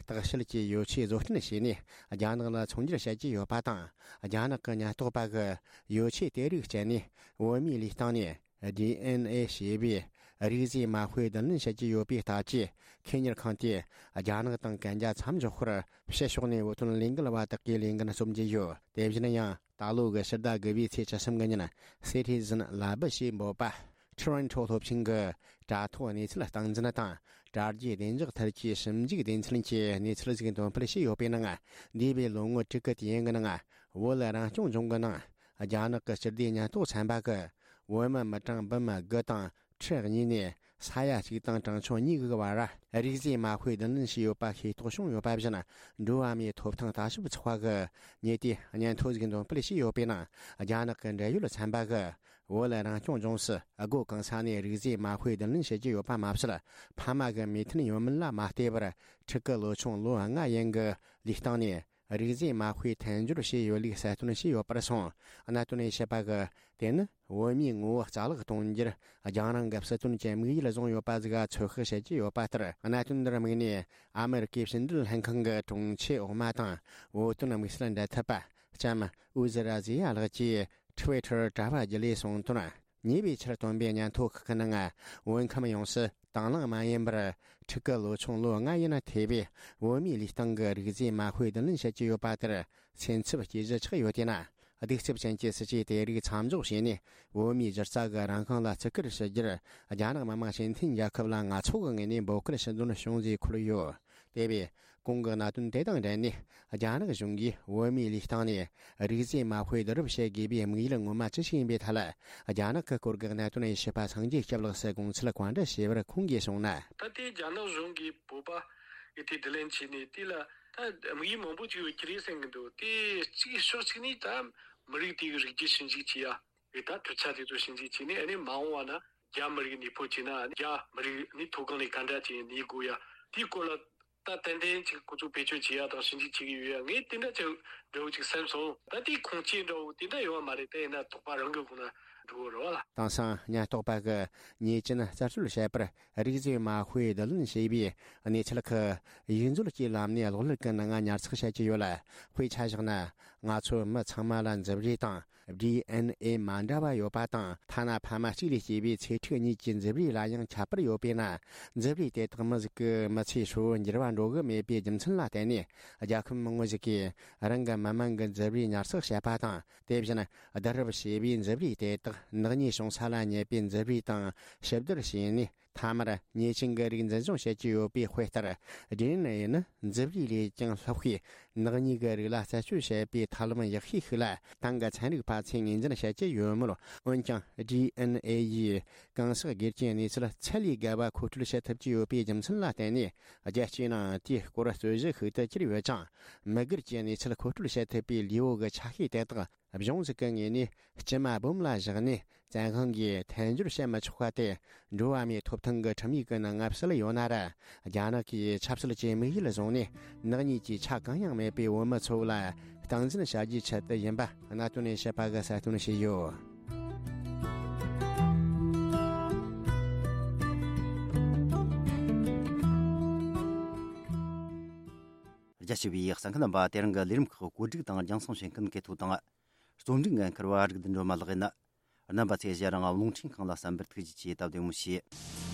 བརྟག་དཔྱད་ཀྱི་ཡོ་ཆས་བཟོ་སྐྲུན་བྱས་ནས་རྒྱ་ནག་ལ་ཚོང་སྒྱུར་བྱེད་ཀྱི་ཡོད་པ་དང་། རྒྱ་ནག་གི་ཉེན་རྟོག་པ་གིས་ཡོ་ཆས་དེ་རིགས་སྤྱད་ནས་བོད་མིའི་ལུས་སྟེང་ནས་ཌི་ཨེན་ཨེ་ཞེས་པའི་རིགས་རྫས་མ་དཔེ་བསྡུ་ལེན་བྱེད་ཀྱི་ཡོད་པའི་སྟབས་ཀྱིས། ཁེ་གཉེར་ཁང་དེས་རྒྱ་ནག་དང་གན་རྒྱ་མཚམས་འཇོག་སྐོར་ཕྱི་ཕྱོགས་ནས་བོད་དོན་ལས་འགུལ་བ་དག་གིས་ལས་འགན་རྩོམ་གྱི་ཡོད། དེ་བཞིན་ཡང་། ད་ལོ་གི་ཕྱི་ཟླ་དགུ་པའི་ཚེས་བཅུ་གསུམ་གི་ཉིན། Citizen Lab ཞེས་འབོད་པ། Toronto སློབ་ཆེན་གྱི་དྲ་ཐོག་གནས་ཚུལ་སྟངས་འཛིན་དང་། དྲ་རྒྱའི་བདེ་འཇགས་ཐད་ཀྱི་ཞིབ་འཇུག་སྡེ་ཚན་གྱིས་གནས་ཚུལ་ཞིག་འདོན་སྤེལ་བྱས་ཡོད་པའི་ནང་། འདས་པའི་ལོ་ངོ་དྲུག་གི་དུས་ཡུན་གྱི་ནང་། བོད་རང་སྐྱོང་ལྗོངས་ཀྱི་ནང་། རྒྱ་ནག་གི་སྤྱི་བདེ་ཉེན་རྟོག་ཚན་པ་གིས། བོད་མི་མི་གྲངས་འབུམ་དགུ་དང་ཁྲི་གཉིས་ནས་ ས་ཡ་གཅིག་དང་གྲངས་ཆུང་གཉིས་ཀྱི་བར་རིགས་རྫས་མ་དཔེ་བསྡུ་ལེན་བྱས་ཡོད་པ་ཤེས་རྟོགས་བྱུང་ཡོད་པ་བཞིན། འགྲོ་བ་མིའི་ཐོབ་ཐང་ལྟ་ཞིབ་ཚོགས་པ་གི་ཉེ་དུས་སྙན་ཐོ་ཞིག་འདོན་སྤེལ་བྱས་ཡོད་པའི་ནང་རྒྱ་ནག་གི་འབྲེལ་ཡོད་ཚན་པ་གི་བོད་རང་སྐྱོང་ལྗོངས་སུ་སྒོ་གང་ས་ནས་རིགས་རྫས་མ་དཔེ་བསྡུ་ལེན་བྱེད་ཀྱི་ཡོད་པ་མ་ཟད། ཕ་མ་གི་མོས་མཐུན་ཡོད་མིན་ལ་མ་ལྟོས་པར་ཕྲུ་གུ་ལོ་ཆུང་ལོ་ལྔ་ཡན་གྱི་ལུས་སྟེང་ནས་རིགས་རྫས་མ་དཔེ་མཐུན་སྦྱོར་བྱས་ཡོད་ལུགས་གསལ་སྟོན་བྱས་ཡོད་པར་སོང་། གནད་དོན་ནས་བཤད་པ་གི་དེ་ནི་བོད་མིའི་ངོ་བོ་རྩ་བརླག་གཏོང་རྒྱུར་རྒྱང་རིང་གི་སྲིད་དོན་གྱི་དམིགས་ཡུལ་བཟུང་ཡོད་པ་ཟིག་ཚོད་དཔག་བྱེད་ཀྱི་ཡོད་པ་ལྟར། གནད་དོན་འདིར་དམིགས་ནས་ཨ་མེ་རི་ཀའི་ཕྱི་འབྲེལ་ལྷན་ཁང་གི་དྲུང་ཆེ་འོག་མ་དང་བོད་དོན་དམིགས་བསལ་འབྲེལ་མཐུད་པ་ལྕམ་ཨུ་ཟི་ར་ཟི་ཡ་ལགས་ཀྱིས་ཊི་ཝི་ཊར་དྲ་བ་བརྒྱུད་ལས་གསུངས་དོན། ཉེ་བའི་ཆར་བཏོན་པའི་སྙན་ཐོ་ཁག་གི་ནང་། བོད་ཁམས་ཡོངས་སུ་དང་བླངས་མ་ཡིན་པར་ཕྲུ་གུ་ལོ་ཆུང་ལོ་ལྔ་ཡིན་ན་ཐེ་བའི་བོད་མིའི་ལུས་སྟེང་གི་རིགས་རྫས་མ་དཔེ་བསྡུ་ལེན་བྱེད་ཀྱི་ཡོད་པ་དེར་སེམས་འཚབ་སྐྱེ་གཞི་ཆགས་ཡོད་དེ་ན། གདུག་རྩུབ་ཅན་གྱི་སྲིད་ཇུས་དེ་རིགས་མཚམས་འཇོག་བྱས་ནས། བོད་མིའི་སྒྱུ་རྩལ་གྱི་རང་དབང་ལ་བརྩི་བཀུར་ཞུ་རྒྱུར་རྒྱ་ནག་མི་དམངས་སྤྱི་མཐུན་རྒྱལ་ཁབ་ལ་ང་ཚོ་གི་ངོས་ནས་འབོད་སྐུལ་ཞུ་འདོན་བྱུང་ཞེས་འཁོད་ཡོད། དེ་བས། གོང་གི་གནད་དོན་དེ་དང་འབྲེལ་ནས། རྒྱ་ནག་གཞུང་གིས་བོད་མིའི་ལུས་སྟེང་ནས་རིགས་རྫས་མ་དཔེ་བསྡུ་རུབ་བྱེད་དགོས་པའི་དམིགས་ཡུལ་ངོ་མ་ཅི་ཞིག་ཡིན་པའི་ཐད་ལ། རྒྱ་ནག་གི་སྐོར་གྱི་གནད་དོན་ཡི་ཞིབ་པ་སངས་རྒྱས་སྐྱབས་ལགས་སུ་དགོངས་ཚུལ་བཀའ་འདྲི་ཞུས་པར་ཁོང་གིས་གསུངས་ན། ད་ལྟའི་རྒྱ་ནག་གཞུང་གིས་བོད་པ་ཡི་དེ་དྲིན་ལན་བྱས་ནས། དེ་ལ་ད་དམིགས་ཡུལ་མང་པོ་ཅིག་ཡོད་ཀྱི་རེད་བསམ་གྱི་འདུག་དེ་གཅིག་ཕྱོགས་གཅིག་ནས་ད་མི་རིགས་དེ་གི་རིགས་རྒྱུད་ཞིབ་འཇུག་བྱེད་ཡ། རེད། ད་གྲུབ་ཆ་དེ་ཚོ་ཞིབ་འཇུག་བྱས་ནས། ཨ་ནི་མ་འོངས་པ་ན་རྒྱ་མི་རིགས་ནུས་པ་བྱས་ན། རྒྱ་མི་རིགས་ནི་མཐོ་སྒང་ནས་ག་འདྲ་བྱས་ནས་གནས་དགོས་ཡ། དེའི་སྐོར་ལ་ད་ཏན་ཏན་ཅིག་ཁོ་ཚོ་བེད་སྤྱོད་བྱེད་ཡ་དང་ཞིབ་འཇུག་བྱེད་ཀྱི་ཡོད་ཡ། ངས་དེ་འདྲ་ཅིག་འདྲ་བོ་ཅིག་བསམ་སོང་། ད་དེའི་ཁུངས་སྐྱེལ་འདྲ་བོ་དེ་འདྲ་ཡོད་མ་རེད། དེ་ཡིན་ན་དོགས་པ་རང་གི་ཁོང་ན་འགྲོ་གི་རེད་བ་ལ། དེང་སང་ཉེན་རྟོག་པ་གི་ཉེས་ཅན་རྩད་གཅོད་བྱེད་པར་རིགས་རྫས་མ་དཔེ་བསྡུ་ལེན་བྱས་པའི་གནས་ཚུལ་ཁག་ཡིག་མཛོད་ཀྱི་ལམ་ནས་གློག་ཀླད་ཀྱི་ནང་ཉར་ཚགས་བྱེད་ཀྱི་ཡོད་ལ། དཔེ་ཆ་བཞག་ན། ང་ཚོ་མི་ཚང་མ་ལ་མཛུབ་རུས་དང་ཌི་ཨེན་ཨེ་མ་འདྲ་བ་ཡོད་པ་དང་། ཐ་ན་ཕ་མ་གཅིག་ལས་སྐྱེས་པའི་ཚེ་ཕྲུག་གཉིས་ཀྱི་མཛུབ་རུས་ལ་ཡང་ཁྱད་པར་ཡོད་པས་ན། མཛུབ་རུས་དེ་དག་མི་ཟིག་གི་མི་ཚེའི་ཧྲིལ་བོར་འགྱུར་བ་འགྲོ་གི་མེད་པའི་རྒྱུ་མཚན་ལ་བརྟེན་ནས། རྒྱལ་ཁབ་མང་བོ་ཞིག་གིས་རང་གི་མི་མང་གི་མཛུབ་རུས་ཉར་ཚགས་བྱེད་པ་དང་། དེ་བཞིན་བསྡུ་རུབ་བྱས་པའི་མཛུབ་རུས་དེ་དག་ནག་ཉེས་བྱུང་ས་ལ་ཉེ་པའི་མཛུབ་རུས་དང་ཕྱི་བསྡུར་བྱས་ནས། མཐའ་མར་ཉེས་ཅན་གྱི་རིགས་འཛིན་སྐྱོང་བྱེད་ཀྱི་ཡོད་པའི་དཔེ་ལྟར། ཌི་ཨེན་ཨེ་ནི་མཛུབ་རུས་ལས་ཀྱང་ལྷག་པའི་ནག་ཉེས་ཀྱི་རིགས་ལ་རྩད་གཅོད་བྱེད་པའི་ཐབས་ལམ་ཡག་ཤོས་ཤིག་ལ་ཏང་གི་ཚན་རིག་པ་ཚོས་ངོས་འཛིན་བྱེད་ཀྱི་ཡོད་མོད། འོན་ཀྱང་ཌི་ཨེན་ཨེ་ཡིས་གང་ཟག་སྒེར་གྱི་གནས་ཚུལ་ཚད་ལས་བརྒལ་བ་མཁོ་སྤྲོད་བྱེད་ཐུབ་ཀྱི་ཡོད་པའི་རྒྱུ་མཚན་ལ་བརྟེན་ནས། རྒྱལ་སྤྱིའི་ནང་དེའི་སྐོར་རྩོད་གཞི་ཤིག་ཏུ་གྱུར་ཡོད་ཅིང་། མི་སྒེར་གྱི་གནས་ཚུལ་མཁོ་སྤྲོད་བྱེད་ཐུབ་པའི་ལུས་པོ་གི་ཆ་ཤས་དེ་དག་གཞུང་ཞིག་གི་ངོས་ནས་སྐྱེལ་མ་སྦོམ་ལ་བཞག་ནས་བཙན་དབང་གིས་མཐུན་སྦྱོར་བྱེད་མི་ཆོག་པ་དེ། འགྲོ་བ་མིའི་ཐོབ་ཐང་གི་ཁྲིམས་ཡིག་གི་ནང་ང་གསལ་ཡོད་ན་ར། རྒྱ་ནག་གིས་ཆབ་སྲིད་ཀྱི་དམིགས་ཡུལ་བཟུང་ནས་ནག་ཉེས་ཀྱི་ཆ་གང་ཡང་མེད་པའི་བོད་མི་ཚོ་ལ་སྟངས་འཛིན་བྱ་རྒྱུའི་ཆེད་དུ་ཡིན་པ་གནད་དོན་ནས་བཤད་པ་གི་གསལ་སྟོན་བྱས་ཡོད། རྒྱ་ཆེ་བའི་གསན་མཁན་རྣམ་པ། དེ་རིང་གི་ལས་རིམ་ཁག་བཀོད་སྒྲིག་དང་རྒྱང་སྲིང་བྱེད་མཁན་གལ་ཐོ་དང་། རྩོམ་སྒྲིག་འགན་འཁུར་བ་རིག་ལྡན་སྒྲོལ་མ་ལགས་ཡིན། རྣམ་པ་ཚོས་གཞན་རང་རླུང་འཕྲིན་ཁང་ལ་གསན་པར་ཐུགས་རྗེ་ཆེ། སྟབས་བདེ་མོ་བྱོས།